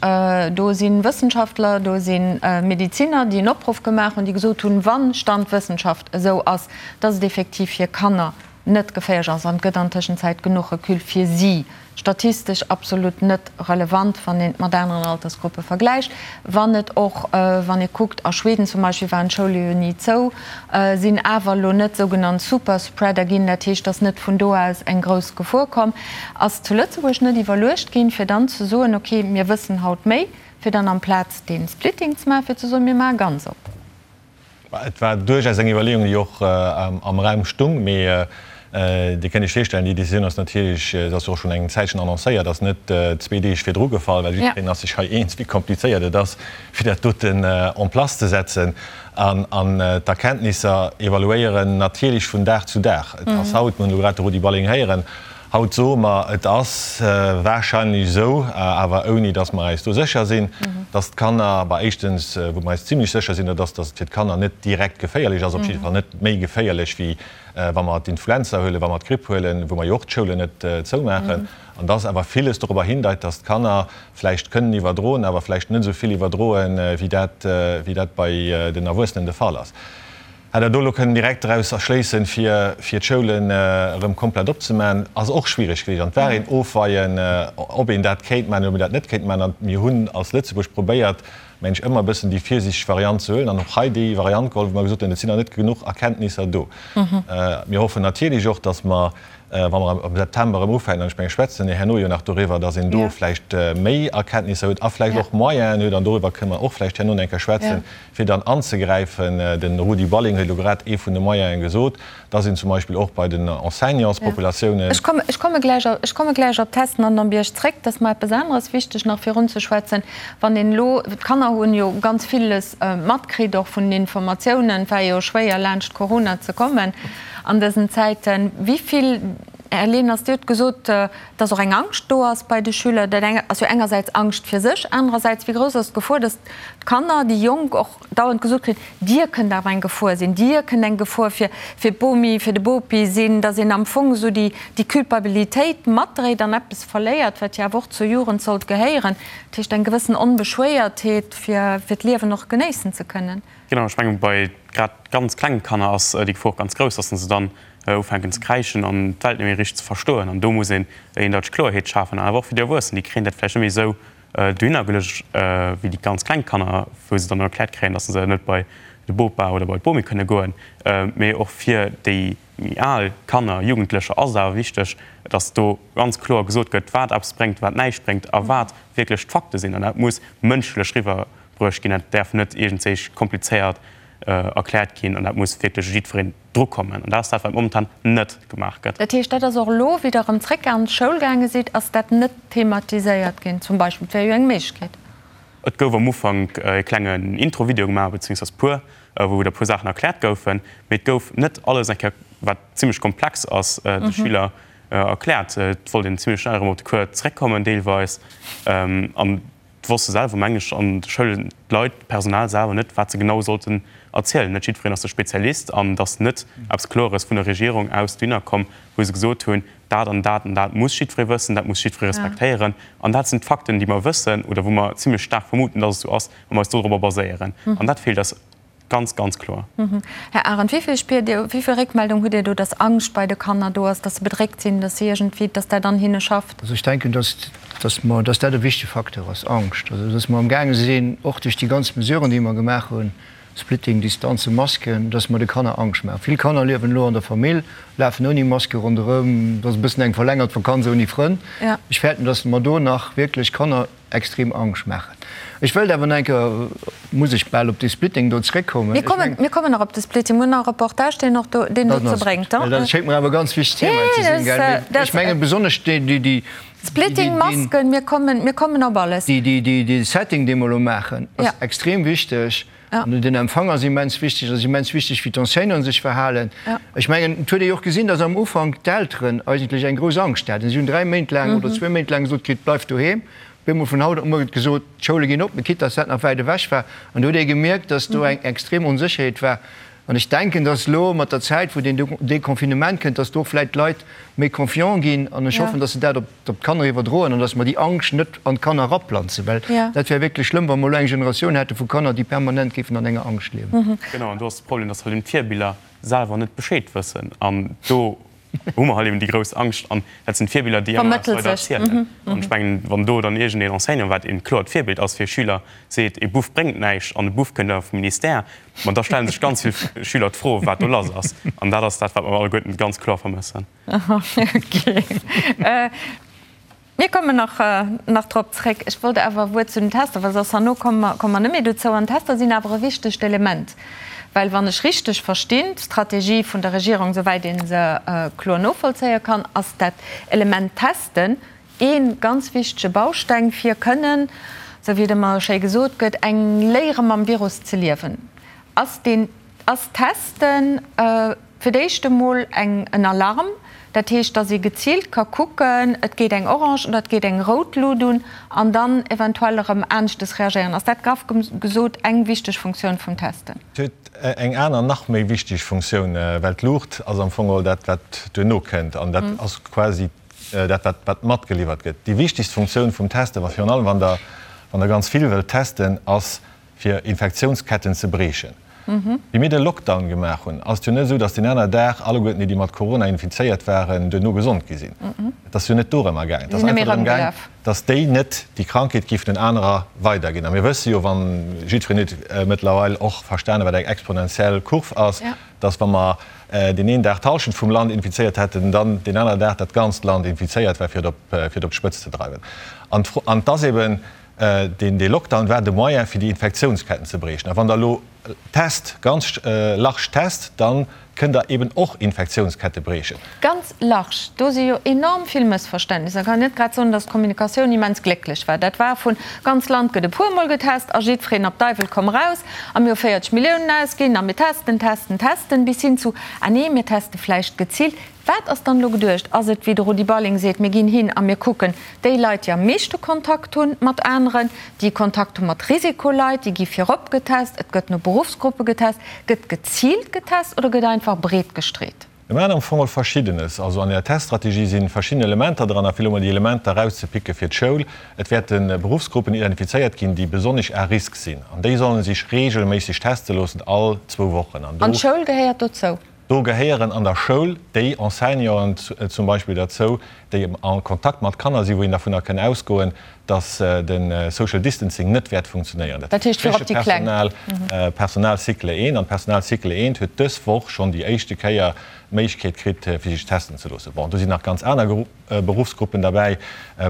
do si Wëssenschaftler, do si Mediziner, déi en Opruff gemaach hunn, déi gesot hunn, wann Stand Wëssenschaft esou ass, dass et effektiv fir Kanner net geféierlech ass an et gëtt an Tëschenzäit genuch Recul fir si, statistesch absolut net relevant, wann een et mat aneren Altersgruppe vergläicht, wann et och, wann ee kuckt, a Schweden zum Beispill waren d'Schoule jo ni zou, sinn awer elo net sougenannt Superspreader ginn, dat heescht, dass net vun do aus eng grouss Gefor komm ass. Zu Lëtzebuerg net iwwerluecht ginn, fir dann ze soen, okay, mir wëssen haut méi, fir dann amplaz dee Splitting ze maachen, fir ze soen, mir maache ganz op. Et war duerchaus eng Iwwerleeung, déi och am Raum stung. Mee Dir kënnt Iech virstellen, déi Decisioun ass natierlech, se ass jo och schonn eng Zäitchen annoncéiert, ass net zwee Deeg virdru gefall, well jiddwereen ass sech hei eens, wéi komplizéiert et ass, fir dat doten en place ze setzen. An d'Erkenntnisser evaluéieren natierlech vun Dag zu Dag. Et ass haut, mir hunn elo grad de Rudi Balling héieren, Haut soe mer, et ass wahrscheinlech esou, awer ouni datt mer eis do sécher sinn, datt d'Kanner, bah éischtens, wou mer eis zimlech sécher sinn, dat ass, datt et fir d'Kanner net direkt geféierlech ass, op jidde Fall net méi geféierlech wéi wa mer d'Influenza huelen, wa mer d'Gripp huelen, wou mer jo och d'Schoulen net zoumaachen, an datt awer villes dorobber hindeit, datt d'Kanner vläicht kënnen iwwerdroen, awer vläicht net esou vill iwwerdroen, wéi dat, wéi dat bei den Erwuessenen de Fall ass. Hätt Der do elo kënnen direkt draus erschléissen, fir fir d'Schoulen erëm komplett opzemaachen, ass och schwierig gewiescht. An et war een Ofweien, ob een dat kéint maachen oder ob een dat net kéint maachen. An mir hunn als Lëtzebuerg probéiert, mengen ech, ëmmer e bëssen déi virsiichteg Variant ze huelen an och hei déi Variant geholl, wou mer gesot hunn, et sinn nach net genuch Erkenntnisser do. Mir hoffen natierlech och, dass mer, wa mer am September erëm ufänken, an ech mengen, schwätzen mir herno jo nach doriwwer, dass een do vläicht méi Erkenntnisser huet a vläicht och Moyenen huet, an doriwwer kënne mer och vläicht herno nach eng Kéier schwätzen, fir dann anzegräifen, de Rudi Balling huet elo grad ee vun de Moyene gesot, dass een zum Beispill och bei den Enseignantspopulatiounen. Ech komme, ech komme gläich, ech komme gläich op d'Testen an den Bierg zréck. Et ass mer eppes aneres wichteg nach virunzeschwätzen. Wann een elo, d'Kanner hunn jo ganz villes matkritt, och vun den Informatiounen, et war jo schwéier laanscht Corona ze kommen an dësen Zäiten. Wéi vill. Här Leners, Dir hutt gesot, dass och eng Angscht do ass bei de Schüler. Dat eng ass jo engersäits Angscht fir sech, anerersäits, wéi grouss ass d'Gefor, dass d'Kanner, déi Jonk och dauernd gesot kréien, Dir kënnt awer eng Gefor sinn, Dir kënnt eng Gefor fir fir d'Bomi, fir de Bopi sinn, dass een am Fong esou déi déi Culpabilitéit matdréit an eppes verléiert, wat jo awer och zur Jugend sollt gehéieren, dat heescht eng gewëssen Onbeschwéiertheet, fir fir d'Liewen och genéissen ze kënnen. Genau, ech mengen, bei grad ganz klengen Kanner ass déi Gefor och ganz grouss, dass se dann ufänken ze kräischen an d'Welt net méi richteg ze verstoen. An do muss een eendeiteg Kloerheet schafen. An awer och fir déi Erwuessen, déi kréien dat vläicht net méi esou dohinner geluecht wéi déi ganz kleng Kanner, wou se dann erkläert kréien, dass se net bei de Bopa oder bei d'Bomi kënne goen. Mee och fir déi méi al Kanner, Jugendlecher ass et awer wichteg, dass do ganz kloer gesot gëtt, wat eppes bréngt, wat näischt bréngt a wat wierklech d'Fakte sinn. An dat muss mënschlech riwwerbruecht ginn. Dat däerf net iergendwéi komplizéiert erkläert ginn an dat muss wierklech jiddwereen dru kommen. An dat ass dat, wat momentan net gemaach gëtt. Dat heescht, dat ass och elo, wéi Der erëm zréck an d'Schoul gaange sidd, ass dat net thematiséiert ginn zum Beispill? Dat wär jo eng Méiglechkeet. Et gouf am Ufank e klengen Intro-Video gemaach, beziéungsweis puer, wou der puer Saachen erkläert goufen, mee et gouf net alles eng Kéier, wat zimlech komplex ass, de Schüler erkläert. Et wollt een zimlech schnell erëm op de Cours zréckkommen deelweis. An Et wosste selwer, mengen ech, an de Schoulen d'Leit, d'Personal selwer net, wat se genau sollten erzielen. Net jiddwereen ass de Spezialist an et ass net eppes Klores vun der Regierung aus dohinner komm, wou se gesot hunn, dat an dat an dat muss jiddweree wëssen, dat muss jiddweree respektéieren an dat sinn d'Fakten, déi mer wëssen oder wou mer zimlech staark vermuten, dass et esou ass a mer eis dodrobber baséieren. An dat feelt eis Ganz, ganz kloer. Här Arendt, wéi vill spiert Dir, wéi vill Réckmeldung hutt Dir do, dass Angscht bei de Kanner do ass, dass se bedréckt sinn, dass si iergendwéi, dass dat an hinne schafft? Also ech denken, dass, dass mer, dass dat e wichtege Facteur ass, Angscht. Also dass mer amgaange sinn, och duerch déi ganz Mesuren, déi mer gemaach hunn, Splitting, Distanze, Masken, dass mer de Kanner Angscht maachen. Vill Kanner liewen elo an der Famill, lafen ouni Maske ronderëm, dat ass e bëssen eng verlängert Vakanz ouni Frënn. Ech fäerten, dass mer do nach wierklech Kanner, extrem Angscht maachen. Ech wëllt awer nach eng Kéier, muss ech bal op dee Splitting do zréckkommen. Mir kommen, mir kommen nach op de Splitting. Mir hunn nach e Reportage, deen och do, deen dozou bréngt. Well dat schéngt mer awer e ganz wichtegt Thema ze sinn, gell? Mee ech mengen besonnesch déi, déi, déi. Splitting, Masken, mir kommen, mir kommen op alles. Déi, déi, déi, dee Setting, dee mer elo maachen, ass extrem wichteg. An den Empfang ass immens wichteg. Et ass immens wichteg, wéi d'Enseignanten sech verhalen. Ech mengen, et huet ee jo och gesinn, datt am Ufank d'Elteren eigentlech eng grouss Angscht haten. Si hunn 3 Méint laang oder zwee Méint laang gesot kritt, Bleift doheem. Op eemol vun haut op muer gëtt gesot, d'Schoule ginn op, quitte datt dat nach wäit ewech war. An do huet ee gemierkt, datt do eng extrem Onsécherheet war. An ech denken, datt elo mat der Zäit, wou den Deconfinement kënnt, datt do vläicht d'Leit méi confiant ginn. An ech hoffen, datt se dat op d'Kanner iwwerdroen an datt mer déi Angscht net an d'Kanner eraplanzen, well dat wär wierklech schlëmm, wa mer elo eng Generatioun hätte vu Kanner, déi permanent géifen an enger Angscht liewen. Genau, an do ass de Problem, datt halt eben d'Virbiller selwer net Bescheed wëssen. An do hu mer halt eben déi grouss Angscht. An dat sinn d'Virbiller, déi ëmmer eppes weider erzielen. An ech mengen, wann do dann iergendeen Enseignant, wat een kloert Virbild ass fir Schüler, seet, e Buff bréngt näischt an e Buff kënnt awer vum Ministère, ma da stelle sech ganz vill Schüler d'Fro, wat do lass ass. An dat ass dat, wat mer alleguerten ganz kloer vermëssen. Okay. Mir kommen nach, nach drop zréck. Ech wollt awer e Wuert zu den Tester, well soss herno komme mer, komme mer net méi dozou. An d'Tester sinn awer e wichtegt Element, well wann ech richteg verstinn, d'Strategie vun der Regierung, souwäit ee se kloer novollzéie kann, ass dat Element Testen ee ganz wichtege Bausteng, fir kënnen, esou wéi et ëmmer schéi gesot gëtt, eng Léiere mam Virus ze liewen. Ass deen Ass Testen fir d'éischt emol eng en Alarm, dat heescht, datt ee geziilt ka kucken, et geet eng orange oder et geet eng rout Lut un, an dann eventuell erëm aneschtes reagéieren? Ass dat graff gesot eng wichteg Funktioun vum Testen? Et huet eng aner, nach méi wichteg Funktioun, well d'Luucht ass am Fong geholl dat, wat duerno kënnt, an dat ass quasi dat, wat wat matgeliwwert gëtt. Déi wichtegst Funktioun vum Testen, wa virun allem wann Der wann Der ganz vill wëllt testen, ass fir Infektiounsketten ze briechen. Wéi mir de Lockdown gemaach hunn, ass et jo net esou, datt deen aner Dag alleguerten déi, déi mat Corona infizéiert waren, duerno gesond gi sinn. Et ass jo net dorëmmer gaangen. Et ass einfach drëm gaang, datt déi net déi Krankheet géifen den anerer weiderginn. A mir wësse jo, wann, jiddwereen huet mëttlerweil och verstanen, wat eng exponentiell Kurv ass, datt wa mer deen een Dag d'Hallschent vum Land infizéiert hätten, dann deen anere Dag dat ganzt Land infizéiert war, fir et op, fir et op d'Spëtz ze dreiwen. An d'Fro, an et ass eben, Deen dee Lockdown war de Moyen fir déi Infektiounsketten ze briechen. A wann Der elo test, ganz large test, da kënnt Der eben och Infektiounskette briechen. Ganz large, do si jo enorm vill Mëssverständnisser. Kann net grad soen, datt d'Kommunikatioun immens glécklech war. Dat war vun, ganz Land gëtt e puermol getest a jiddwereen op Deiwel komm raus a mir hu 40 Milliounen ausginn a mir testen, testen, testen, bis hin zu, ah nee, mir teste vläicht geziilt. Wat ass dann elo geduecht? Ass et, wéi de Rudi Balling seet, mir ginn hin a mir kucken déi Leit, déi am meeschte Kontakt hu mat aneren, déi Kontakt hu mat Risikoleit, déi gi virop getest, et gëtt no Beruffsgruppe getest. Gëtt geziilt getest oder gëtt einfach breet gestreet? Mir maachen am Fong all Verschiddenes. Also an der Teststrategie si verschidden Elementer dran, a fir elo mol déi Elementer erauszepicke fir d'Schoul, Et wäerte Beruffsgruppen identifizéiert ginn, déi besonnesch à risque sinn, an déi solle sech reegelméisseg teste loossen, all zwou Wochen. An d'Schoul gehéiert dozou? Do gehéieren an der Schoul déi Enseignanten zum Beispill derzou, déi a Kontakt mat Kanner sinn, wou een dervunner kënn ausgoen, dass de Social Distancing net wäert funktionéieren. Dat heescht virop déi Kleng. Personal Cycle 1. An d'Personal Cycle 1 huet dës Woch schonn déi éischte Kéier d'Méiglechkeet kritt, fir sech testen ze loossen. Bon, do sinn nach ganz aner Beruffsgruppen derbäi,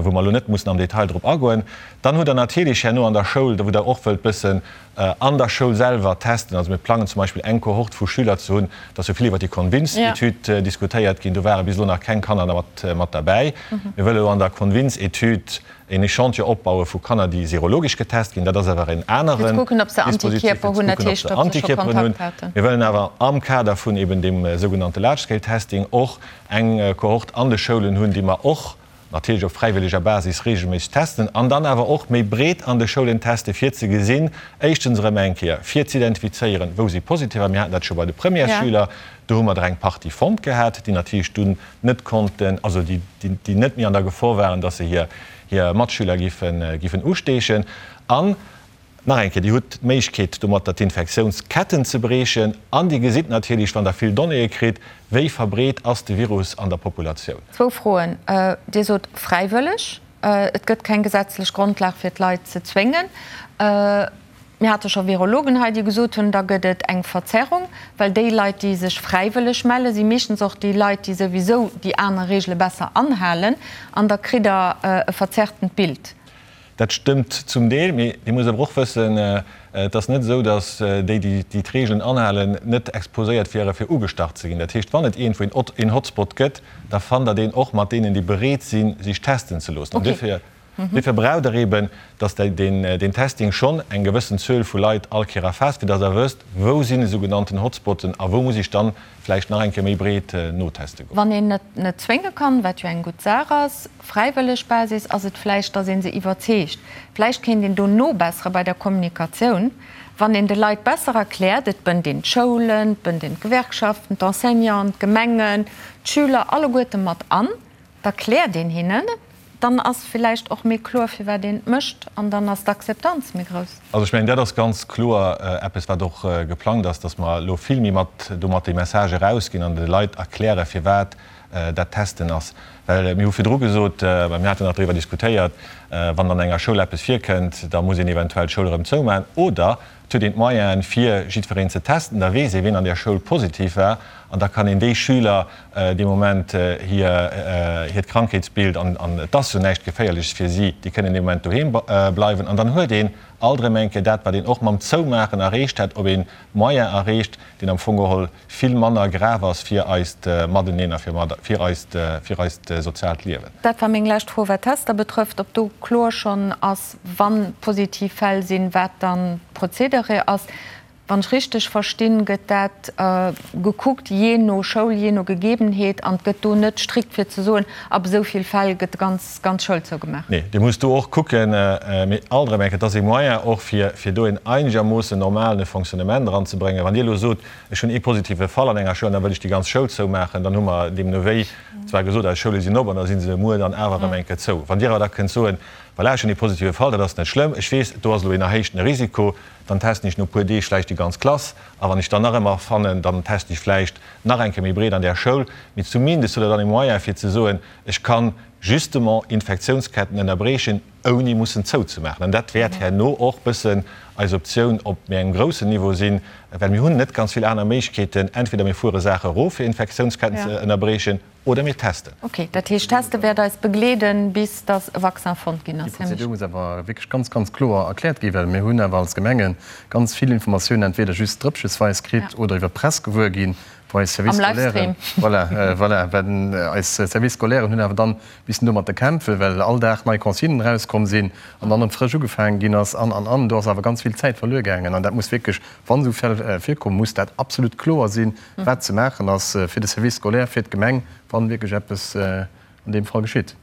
wou mer elo net mussen am Detail drop agoen. Dann hutt Der natierlech herno an der Schoul, wou Der och wëllt bëssen an der Schoul selwer testen. Also mir plangen zum Beispill eng Kohort vu Schüler ze hunn, et ass jo vill iwwer déi Convince-Etüd diskutéiert ginn, do ware bis elo nach keng Kanner mat derbäi. Mir wëlle elo an der Convince-Etüd een Echantillon opbaue vu Kanner, déi serologesch getest ginn. Dat ass awer en aneren Dispositif, fir ze kucken, ob se Antikierperen hunn. Mir wëllen awer am Kader vun eben deem sougenannte Large-Scale-Testing och eng Kohort an de Schoulen hunn, déi mer och natierlech op fräiwëlleger Basis reegelméisseg testen an dann awer och méi breet an de Schoulen teste fir ze gesinn, éischtens erëm eng Kéier fir z'identifizéieren, wou si Positiver, mir haten dat scho bei de Premièresschüler, do hu mer der eng Partie fonnt gehat, déi natierlech dunn net konnten, also déi déi net méi an der Gefor waren, dass se hir hir Matschüler giffen giffen usteechen. An Nach eng Kéier, Dir hutt d'Méiglechkeet, domatter d'Infektiounsketten ze briechen an Dir gesitt natierlech, wann Der vill Donnéeë kritt, wéi verbreet ass de Virus an der Populatioun. Zwou Froen. Dir sot fräiwëlleg. Et gëtt keng gesetzlech Grondlag, fir d'Leit ze zwéngen. Mir hate scho Virologen hei, déi gesot hunn, da gëtt et eng Verzerrung, well déi Leit, déi sech fräiwëlleg mellen, si meeschtens och déi Leit, déi souwisou déi aner Reegele besser anhalen. An da kritt Der e verzerrtent Bild. Dat stëmmt zum Deel, mee Dir musst awer och wëssen, et ass net esou, datt déi, déi d'Reegelen anhalen, net exposéiert wiere fir ugestach ze ginn. Dat heescht, wann et iergendwou een Hotspot gëtt, da fannt Der deen och mat deenen, déi bereet sinn, sech testen ze loossen. An duerfir, duerfir braucht Der eeben, datt deen Testing schonn eng gewëssen Zuel vu Leit all Kéier erfaasst, fir datt Der wësst, wou sinn esougenannten Hotspotten a wou muss ech dann vläicht nach eng Kéier méi breet noteste goen. Wann een et net zwénge kann, wat jo eng gutt Saach ass, fräiwëlleg Basis, ass et vläicht, datt ee se iwwerzeegt. Vläicht kéint een do nobessere bei der Kommunikatioun, wann een de Leit besser erkläert, et bënnt een d'Schoulen, et bënnt een d'Gewerkschaften, d'Enseignanten, d'Gemengen, d'Schüler alleguerte mat an, da kläert een hinnen, dann ass villäicht och méi kloer, firwat een et mécht an dann ass d'Akzeptanz méi grouss. Also ech mengen, dat ass ganz kloer eppes, wat och geplangt ass, datt mer elo vill méi mat domat déi Message erausginn an de Leit erklären, firwat dat Testen ass. Well mir hu virdru gesot, well mir haten nach driwwer diskutéiert, wann an enger Schoul eppes virkënnt, da muss een eventuell d'Schoul erëm zoumaachen oder et huet een d'Moyenen, fir jiddwereen ze testen, da weess ee wien an där Schoul positiv war an da kann een déi Schüler dee Moment hir hiert Krankheetsbild, an et ass jo näischt Geféierleches fir si, déi kënnen dee Moment doheem bleiwen an dann huet een alt erëm eng Kéier dat, wat een och mam Zoumaachen erreecht hätt, op ee Moyen erreecht, deen am Fong geholl vill manner grav ass fir eist Mateneen a fir eist, fir eist soziaalt Liewen. Dat war meng lescht Fro, wat d'Tester betrëfft, ob do kloer schonn ass, wa positiv Fäll sinn, wat dann d'Prozedere ass. Wann ech richteg verstinn, gëtt dat gekuckt jee no Schoul, jee no Gegebenheet an et gëtt do net strikt fir ze soen, ab esou vill Fäll gëtt d'ganz ganz Schoul zougemaach. Nee, Dir musst do och kucken, mee alt erëm eng Kéier, et ass ee Moyen och fir fir do een einegermoossen normalen Fonctionnement eranzebréngen. Wann Dir elo sot, ech hunn ee positive Fall an enger Schoul an da wëll ech déi ganz Schoul zoumaachen, dann hu mer deemno wéi zwar gesot, eis Schoule sinn op an da si se muer dann awer erëm eng Kéier zou. Wann Dir awer da kënnt soen, voilà, ech hunn ee positive Fall, dat ass net schlëmm, ech weess, do ass elo een erhéichtene Risiko, Dann testen ech no puer Deeg vläicht déi ganz Klass a wann ech dann nach ëmmer fannen, dann testen ech vläicht nach eng Kéier méi breet an där Schoul. Mee zumindest hutt Der dann e Moyen fir ze soen, ech kann justement Infektiounsketten ënnerbriechen, ouni mussen zouzemaachen. An dat wäert herno och bëssen eis Optioun op méi engem groussen Niveau sinn, well mir hunn net ganz vill aner Méiglechkeeten. Entweder mir fuere Saache erof fir Infektiounsketten ze ënnerbriechen, Oder mir testen. Ok, dat heescht teste wäert eis begleeden, bis datt e Vaccin fonnt ginn ass. Déi Prozedur muss awer wierklech ganz, ganz kloer erkläert ginn, well mir hunn awer als Gemenge ganz vill Informatiounen entweder just drëppchesweis kritt oder iwwer d'Press gewuer ginn. Wou eis Service scolaire, voilà, voilà, well eis Service scolairen hunn awer dann missen domatter kämpfen, well all Dag nei Consignen erauskomm sinn an dann erëm frësch ugefaangen ginn ass an, an, an. Do ass awer ganz vill Zäit verluer gaangen an dat muss wierklech, wann esou Fäll virkommen, muss dat absolut kloer sinn, wat ze maachen ass fir de Service scolaire, fir d'Gemeng, wann wierklech eppes an deem Fall geschitt.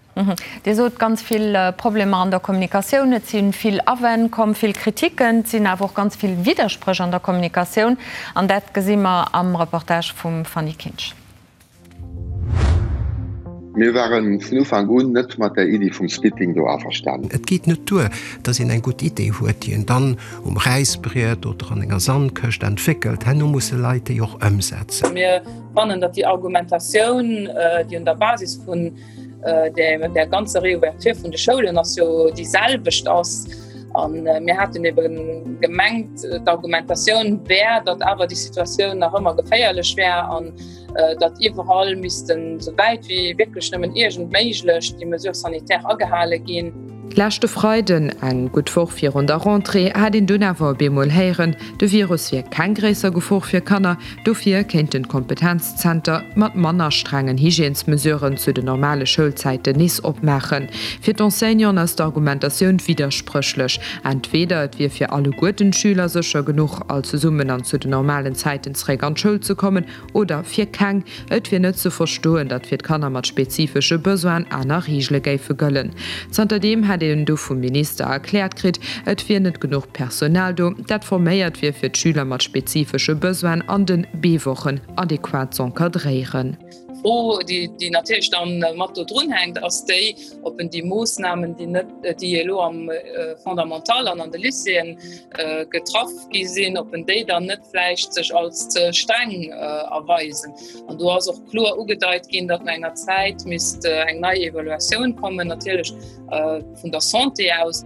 Dir sot, ganz vill Problemer an der Kommunikatioun, et si vill Awänn komm, vill Kritiken, et sinn awer och ganz vill Widderspréch an der Kommunikatioun. An dat gesi mer am Reportage vum Fanny Kinsch. Mir ware vun Ufank un net mat där Iddi vum Splitting do averstanen. Et geet net duer, datt een eng gutt Idee huet, déi een dann um Räisbriet oder an enger Sandkëscht entwéckelt. Herno musse Leit déi och ëmsetzen. Mir fannen, datt déi Argumentatioun, déi un der Basis vun där ganzer Réouverture vun de Schoulen ass, jo déi selwecht ass. A mir haten ebe gemengt, d'Argumentatioun wär, datt awer déi Situatioun nach ëmmer geféierlech wär an datt iwwerall missten, esou wäit wéi wierklech nëmmen iergend méiglech, déi Mesures sanitaires agehale ginn. Leschte Freiden, eng gutt Woch virun der Rentrée, hat een dunn awer op eemol héieren, de Virus wier keng gréisser Gefor fir Kanner, dofir kéinten d'Kompetenzzenter mat manner strengen Hygiènesmesuren zu den normale Schoulzäiten nees opmaachen. Fir d'Enseignanten ass d'Argumentatioun widderspréchlech, Entweder et wier fir alleguerten d'Schüler sécher genuch, all zesummen an zu den normalen Zäiten zeréck an d'Schoul ze kommen, Oder fir keng. Et wier net ze verstoen, datt fir d'Kanner mat spezifesche Besoinen aner Reegele géife gëllen. Zanterdeem hätt een du vum Minister erkläert kritt, et wier net genuch Personal do, dat forméiert wier fir d'Schüler mat spezifesche Besoinen an de B-Wochen adequat z'encadréieren. D'Fro, déi natierlech dann mat do drun hänkt, ass déi, ob en déi Moossnamen, déi net, déi elo am Fondamental an an de Lycéeën getraff gi sinn, ob en déi dann net vläicht sech als ze streng erweisen. An do ass och kloer ugedeit ginn, datt no enger Zäit misst eng nei Evaluatioun kommen, natierlech vun der Santé aus.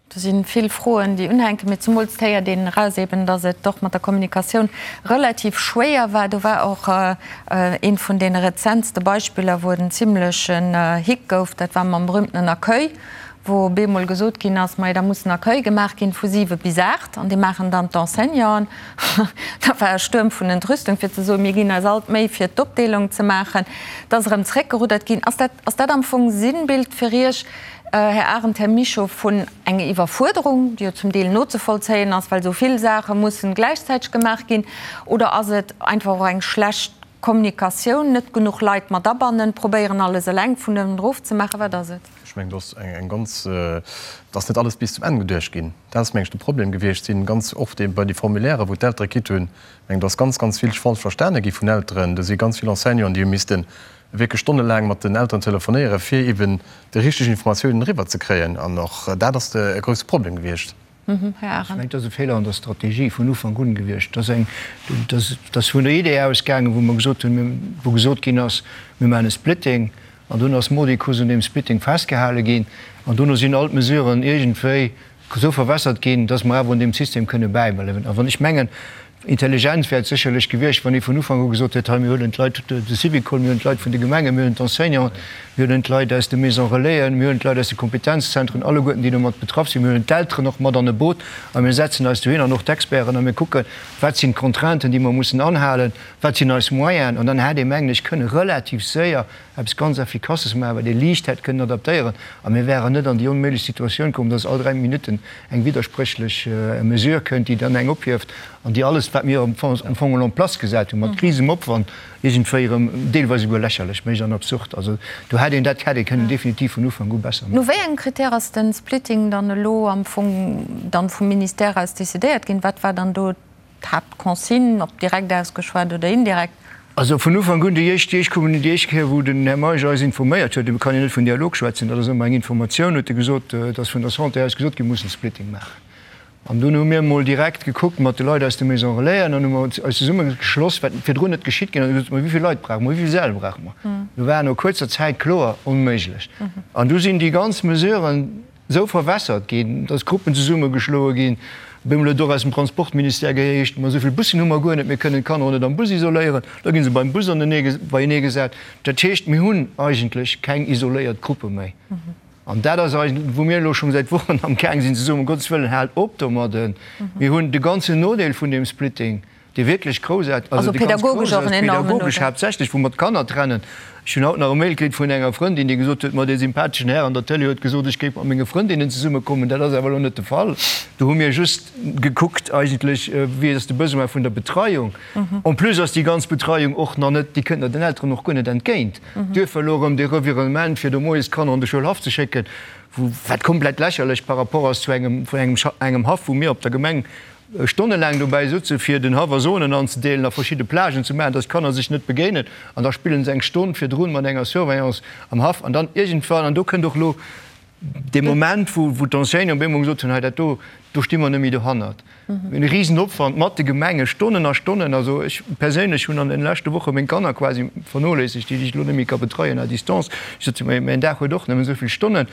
Do si vill Froen, déi unhänken, mee zemools héiert een eraus eben, datt et och mat der Kommunikatioun relativ schwéier war. Do war och eent vun deene rezentste Beispiller, wou et en zimlechen Hick gouf, dat war mam berühmtenen Accueil, wou op eemol gesot ginn ass, majo da muss en Accueil gemaach ginn vu 7 bis 8 an dee maachen dann d'Enseignanten. Da war e Stuerm vun Entrüstung fir ze soen, mir ginn eis all d'Méi fir d'Opdeelung ze maachen. Et ass erëm zréckgeruddert ginn. Ass dat, ass dat am Fong Sinnbild fir Iech, Här Arendt, Här Mischo, vun enger Iwwerfuerderung, déi jo zum Deel nozevollzéien ass, well esou vill Saache mussen gläichzäiteg gemaach ginn, oder ass et einfach och eng schlecht Kommunikatioun, net genuch Leit mat abannen, probéieren alles eleng vun uewen erof ze maachen, wat ass et? Ech mengen, do ass eng ganz, et ass net alles bis zum Enn geduecht ginn. Dat ass, meng ech, de Problem gewiescht. Sinn ganz oft bei de Formulairen, wou d'Eltere kritt hunn, meng, do ass ganz, ganz vill falsch verstane gi vun Elteren. Do si ganz vill Enseignanten, déi hu misste wierklech stonnelaang mat den Elteren telefonéieren, fir eben déi richteg Informatiounen eriwwer ze kréien. An och dat ass e grousse Problem gewiescht. Här Arendt. Ech mengen, et ass e Feeler an der Strategie vun Ufank un gewiescht. Et ass eng, et ass vun der Idee ausgaangen, wou mer gesot hunn, wou gesot ginn ass, mir maachen e Splitting. An dunn ass mordicus un deem Splitting festgehale ginn. An dono sinn all d'Mesuren iergendwéi esou verwässert ginn, dass mer awer un deem System kënne bäibleiwen. A wann ech mengen, Intelligent wär et sécherlech gewiescht, wann ee vun Ufank u gesot hätt, hei mir huelen d'Leit, de Syvicol, mir huelen d'Leit vun de Gemengen, mir huelen d'Enseignanten, mir huelen d'Leit aus de Maisons Relaisen, mir huelen d'Leit aus de Kompetenzzentren, alleguerten déi domat betraff sinn, mir huelen d'Elteren och mat an e Boot a mir setzen eis dohin an och d'Experten a mir kucken, wat sinn d'Contrainten, déi mer mussen anhalen, wat sinn eis Moyenen. An dann hätt ee, mengen ech, kënne relativ séier eppes ganz Effikasses maachen, wat ee liicht hätt kënnen adaptéieren, a mir wäeren net an déi onméiglech Situatioun komm, dass all 3 Minutten eng widderspréchlech Mesure kënnt, déi dann eng ophieft an déi alles, wat mir am Fong en place gesat hunn, mat risegem Opwand, iergendwéi erëm deelweis esouguer lächerlech mécht an absurd. Also do hätt een, dat hätt ee kënnen definitiv vun Ufank u besser maachen. No wéi engem Critère ass de Splitting dann elo am Fong dann vum Ministère aus decidéiert ginn? Wat war dann do D'Haaptconsigne, ob direkt ausgeschwat oder indirekt. Also vun Ufank un, déi éischt, déi éischt Kommuni, déi éischt Kéier, wou den Här Meisch eis informéiert huet, et kann een net vun Dialog schwätzen, dat ass ëmmer eng Informatioun, huet e gesot, et ass vun der Santé aus gesot ginn, mir mussen Splitting maachen. An dunn hu mir emol direkt gekuckt mat de Leit aus de Maisons Relaisen an hu mer eis zesummegeschloss, wat virdrun net geschitt ginn ass, a gesot, ma wéi vill Leit brauche mer, wéi vill Säll brauche mer? Do war no kuerzer Zäit kloer, onméiglech. An du sinn déi ganz Mesuren, esou verwässert ginn, dass Gruppen zesummegeschloe ginn. Op eemol huet et och aus dem Transportministère geheescht, ma esou vill Bussen hu mer guer net, mir kënnen d'Kanner och net am Bus isoléieren. Da gi se beim Bus beienee gesat. Dat heescht, mir hunn eigentlech keng isoléiert Gruppe méi. An dat ass eigentlech, wou mir elo schonn säit Wochen am gaang sinn ze soen, um Gottes Wëllen, haalt op domadden. Mir hunn de ganzen Nodeel vun deem Splitting. Dee wierklech grouss, also dee ganz grouss ass, pädagogesch haaptsächlech, wou mer d'Kanner trennen. Ech hunn haut nach e Mail kritt vun enger Frëndin, déi gesot huet, ma dee sympatheschen Här an der Tëlee huet gesot, ech géif mat menge Frëndinnen zesummekommen. Dat ass awer elo net de Fall. Do hu mir just gekuckt eigentlech, wéi ass de Besoin vun der Betreiung. En plus ass déi ganz Betreiung och nach net, déi kënnt den Elteren och guer net entgéint. Duerfir elo erëm dee Revirement, fir do moies d'Kanner an de Schoulhaff ze schécken, wou, wat komplett lächerlech par rapport ass zu engem, vun engem, engem Haff, wou mir op der Gemeng stonnelaang dobäi sutze fir den Haff a Zonen anzedeelen a verschidde Plagen ze maachen, dass d'Kanner sech net begéinen an da spillen se eng Stonn virdrun mat enger Surveillance am Haff an dann iergendwann, an do kënnt och elo dee Moment, wou wou d'Enseignanten op eemol gesot hunn, hei dat do, do sti mer net méi dohannert. Mir hunn e Risenopwand mat de Gemenge, Stonnen a Stonnen. Also ech perséinlech hunn an den leschte Woche meng Kanner quasi vernoléissegt, déi ech elo net méi ka betreien à distance. Ech sot, mäin Dag huet och nëmmen esou vill Stonnen,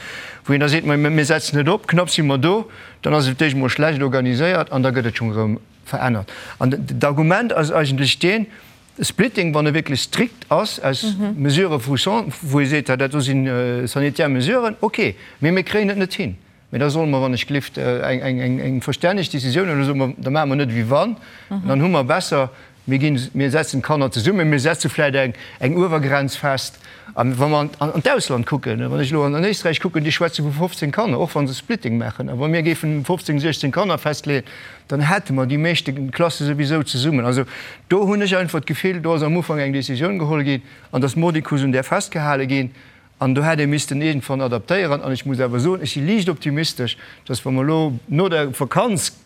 wou een da seet, ma mir setzen et op, knapp si mer do. Dann ass et d'éischt emol schlecht organiséiert an da gëtt et schonn erëm verännert. An d'Argument ass eigentlech deen, de Splitting, wann e wierklech strikt ass aus Mesurë vu wou ee seet, dat do si sanitär Mesuren, okay, mee mir kréien et net hin. Mee da solle mer, wann ech gelift, eng verstänneg Décisioun huelen, da soe mer, da maache mer net ewéi wann, dann hu mer besser Mir ginn, mir setzen d'Kanner zesummen, mir setze vläicht eng, eng Uewergrenz fest. A wa mer an d'Ausland kucken, wann ech elo an Éisträich kucken, déi schwätze vu 15 Kanner, och wa se Splitting maachen. A wa mir géifen 15, 16 Kanner festleeën, dann hätte mer déi meeschte Klasse souwisou zesummen. Also do hunn ech einfach d'Gefill, do ass am Ufank eng Décisioun geholl ginn an dass mordicus un där festgehale ginn. An do hätt ee missten iergendwann adaptéieren. An ech muss awer soen, ech si liicht optimistesch, dass wa mer elo no der Vakanz,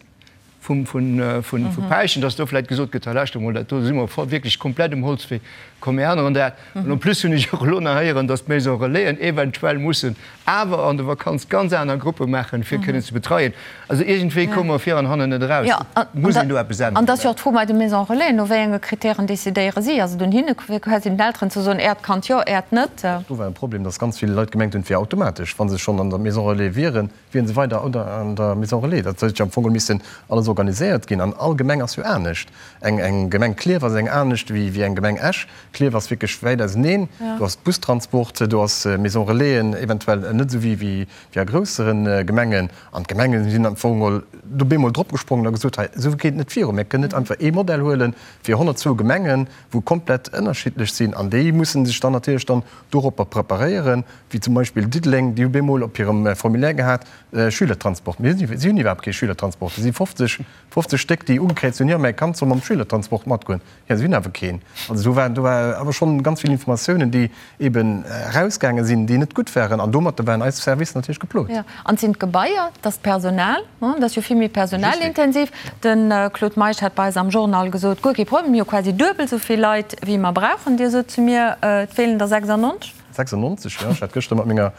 vum vu Päischen, dass do vläit gesot gëtt, hei lauschter mol, dat do si mer wierklech komplett um Holzwee, komm mir änneren dat. An en plus hunn ech och elo nach héieren, dass d'Maison Relaisen eventuell mussen awer an der Vakanz ganz aner Gruppe maachen, fir kënnen ze betreien. Also iergendwéi komme mer vir an hannen net eraus. Et muss een do eppes änneren. An et ass jo och d'Fro bei de Maison Relaisen, no wéi enge Kritären decidéiere si? Ass et un hinne quasi den Elteren ze soen, Äert Kand jo, Äert net? Do war e Problem, dass ganz vill Leit gemengt hunn, et wier automatesch, wa se schonn an der Maison Relais wieren, Wieren se weider an der Maison Relais. Dat huet jo am Fong missen alles organiséiert ginn. An all Gemeng ass jo anescht. Eng Gemeng Klierf ass eng anescht wéi eng Gemeng Esch. Klierf ass wierklech wäit auseneen. Do ass Bustransport, do ass Maison Relaisen eventuell net esou wéi a groussere Gemengen. An d'Gemenge sinn am Fong geholl do bemol dropgesprongen a gesot, hei esou geet et net viru. Mir kënnen net einfach ee Modell huele fir 102 Gemengen, wou komplett ënnerschiddlech sinn. An déi musse sech dann natierlech dann doropper preparéieren. wéi zum Beispill Diddeleng, déi hu bemol op hirem Formulaire gehat, Schülertransport. Mee si hunn iwwerhaapt kee Schülertransport. Et si 50, 50 Stéck, déi ugekräizt hunn, jo, mäi Kand soll mam Schülertransport matgoen. Jo, si hunn awer keen. Also do war, do war awer schonn ganz vill Informatiounen, déi eeben erausgaange sinn, déi net gutt waren. An domatter waren eis Servicer natierlech geplot. Jo, an et sinn d'Gebaier, et ass d'Personal, et ass jo vill méi personalintensiv. De Claude Meisch hat bei eis am Journal gesot, guer kee Problem, mir hu quasi duebel esou vill Leit, wéi mer brauchen. Dir sot zu mir, et feelen der 96. 96, jo. Ech hat gëschter mat menger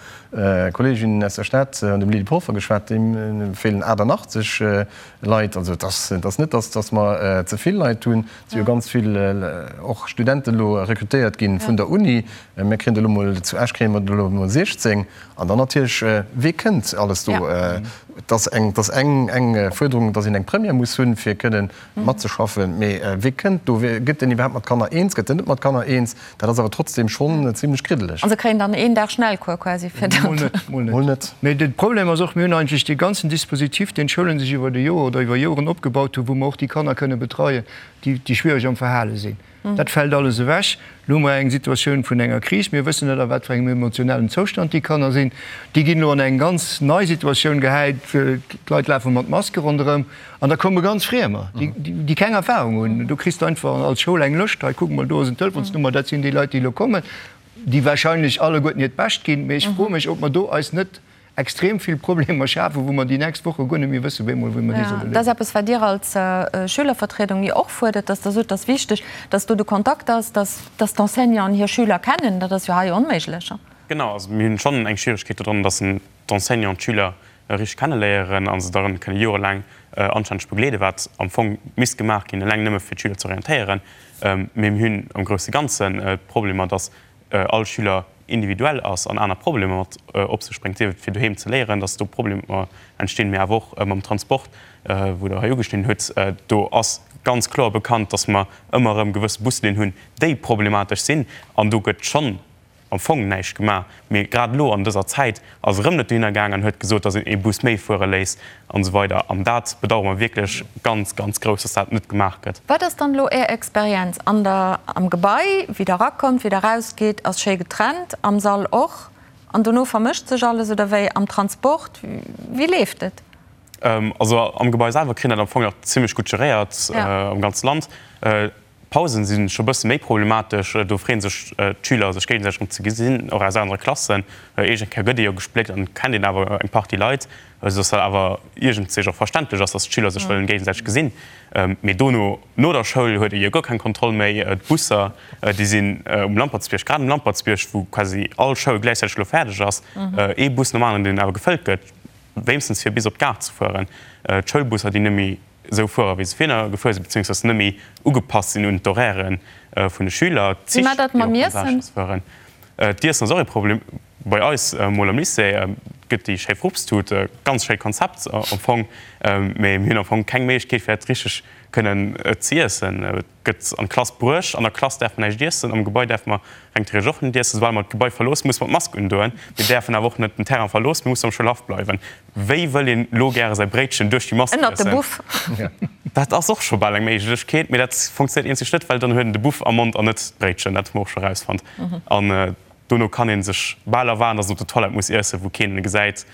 Kolleegin aus der Stad, dem Lydie Polfer, geschwat. Deem feelen 88 Leit. Also et ass, et ass net, datt, datt mer ze vill Leit hunn. Et si jo ganz vill och Studenten elo rekrutéiert gi vun der Uni. Mir kréien der elo mol, zu Esch kréie mer der elo mol 16. An dann natierlech, wee kënnt alles do? Et ass eng, et ass eng, eng Fuerderung, datt een eng Première muss hunn, fir kënnen matzeschaffen. Mee wee kënnt do? Gëtt deen iwwerhaapt mat Kanner eens? Gëtt en net mat Kanner eens? Dat ass awer trotzdem schonn zimlech kriddeleg. An se kréien dann een Dag Schnellcours quasi fir dat. Mol net, mol net. Mol net. Mee de Problem ass och, mir hunn eigentlech dee ganzen Dispositif, deen d'Schoulen sech iwwer de Joer oder iwwer Joren opgebaut hunn, wou mer och déi Kanner kënne betreien, déi, déi schwiereg am Verhale sinn. Dat fält alles ewech. Elo hu mer eng Situatioun vun enger Kris. Mir wëssen net, a wat fir engem emotionellen Zoustand déi Kanner sinn. Déi ginn elo an eng ganz nei Situatioun gehäit. D'Leit lafe mat Maske ronderëm. An da komme ganz Friemer, déi keng Erfahrung hunn. Do kriss de einfach als Schoul eng Lëscht, hei kuck mol, do ass en Telefonsnummer, dat sinn déi Leit, déi elo kommen, déi wahrscheinlech alleguerten hiert Bescht ginn. Mee ech froe mech, ob mer do eis net extrem vill Problemer schafen, wou mer déi nächst Woche guer net méi wëssen, wéi mol wéi mer déi solle léisen. Dat ass eppes, wat Dir als Schülervertriedung jo och fuerdert, dass Der sot, et ass wichteg, dass do de Kontakt ass, dass d'Enseignanten hir Schüler kennen. Dat ass jo hei onméiglech. Genau, also mir hunn schonn eng Schwieregkeet dodran, dass d'Enseignanten d'Schüler richteg kenneléieren a se dann kënne jorelaang anstänneg begleeden, wat am Fong misst gemaach ginn, eleng nëmme fir d'Schüler ze orientéieren. Mee mir hunn am grousse Ganzen d'Problemer, dass all Schüler individuell ass an aner Problemer mat op sech bréngt, sief et fir doheem ze léieren, dass do Problemer entstinn, mee awer och mam Transport, wou Der hei ugeschnidden hutt. Do ass ganz kloer bekannt, dass mer ëmmer erëm gewësse Buslinnen hunn, déi problematesch sinn an do gëtt schonn. am Fong näischt gemaach. Mee grad elo an dëser Zäit ass erëm net dohinner gaang an huet gesot, datt een ee Bus méi fuere léisst an esou weider. An dat bedauere mer wierklech ganz, ganz grouss, datt dat net gemaach gëtt. Wat ass dann elo Är Experienz an der, am Gebai, wéi Der erakommt, wéi Der erausgeet, ass schéi getrennt, am Sall och, an dono vermëscht sech alles oder wéi am Transport, wéi leeft et? Also am Gebai selwer kritt een dat am Fong nach zimlech gutt geréiert am ganze Land. D'Pausen si scho bësse méi problematesch. Do freeën sech d'Schüler sech géigesäiteg erëm ze gesinn, och aus anere Klassen. Iergend Kéier gëtt ee jo gespléckt an et kennt een awer eng Partie Leit, esou dass dat awer iergendzich och verständlech ass, dass d'Schüler sech wëllen géigesäiteg gesinn. Mee dono, no der Schoul, huet ee jo guer keng Kontroll méi. D'Busser, déi sinn um Lampertsbierg, grad um Lampertsbierg, wou quasi all Schoul gläichzäiteg elo fäerdeg ass, ee Bus nom aneren, deen awer gefëllt gëtt, wéinstens fir bis op d'Gare ze fueren. D'Schoulbusser, déi net méi esou fuere wéi se virner gefuer sinn, beziéungsweis net méi ugepasst sinn un d'Horairë vun de Schüler, Wéi d'Zich, maacht dat déi mam och Iessen? Passages fueren. D'Iessen ass och ee Problem. Bei eis mol am Lycée gëtt déi schéi Frupstut, ganz schéi Konzept am Fong, mee mir hunn am Fong keng Méiglechkeet fir dat richteg kënnen ze iessen. Et gëtt an d'Klass bruecht, an der Klass däerf mer näischt iessen, am Gebai däerfe mer reng theoretesch och net iessen. Soubal mer d'Gebai verloossen, musse mer d'Mask undoen. Mir däerfen awer och net den Terrain verloossen, mir mussen am Schoulhaff bleiwen. Wéi wëll een lo gäre säi Bréitchen duerch déi Mask Ënnert de iessen? Buff. Dat ass och scho bal eng Méiglechkeet, mee dat funktionéiert eenzeg net, well dann huet en de Buff am Mond an net d'Bréitchen. Dat hu mer och scho erausfonnt. An dono kann ee sech bal erwaarden, dass en op der Toilette muss iessen, wou keen en gesäit.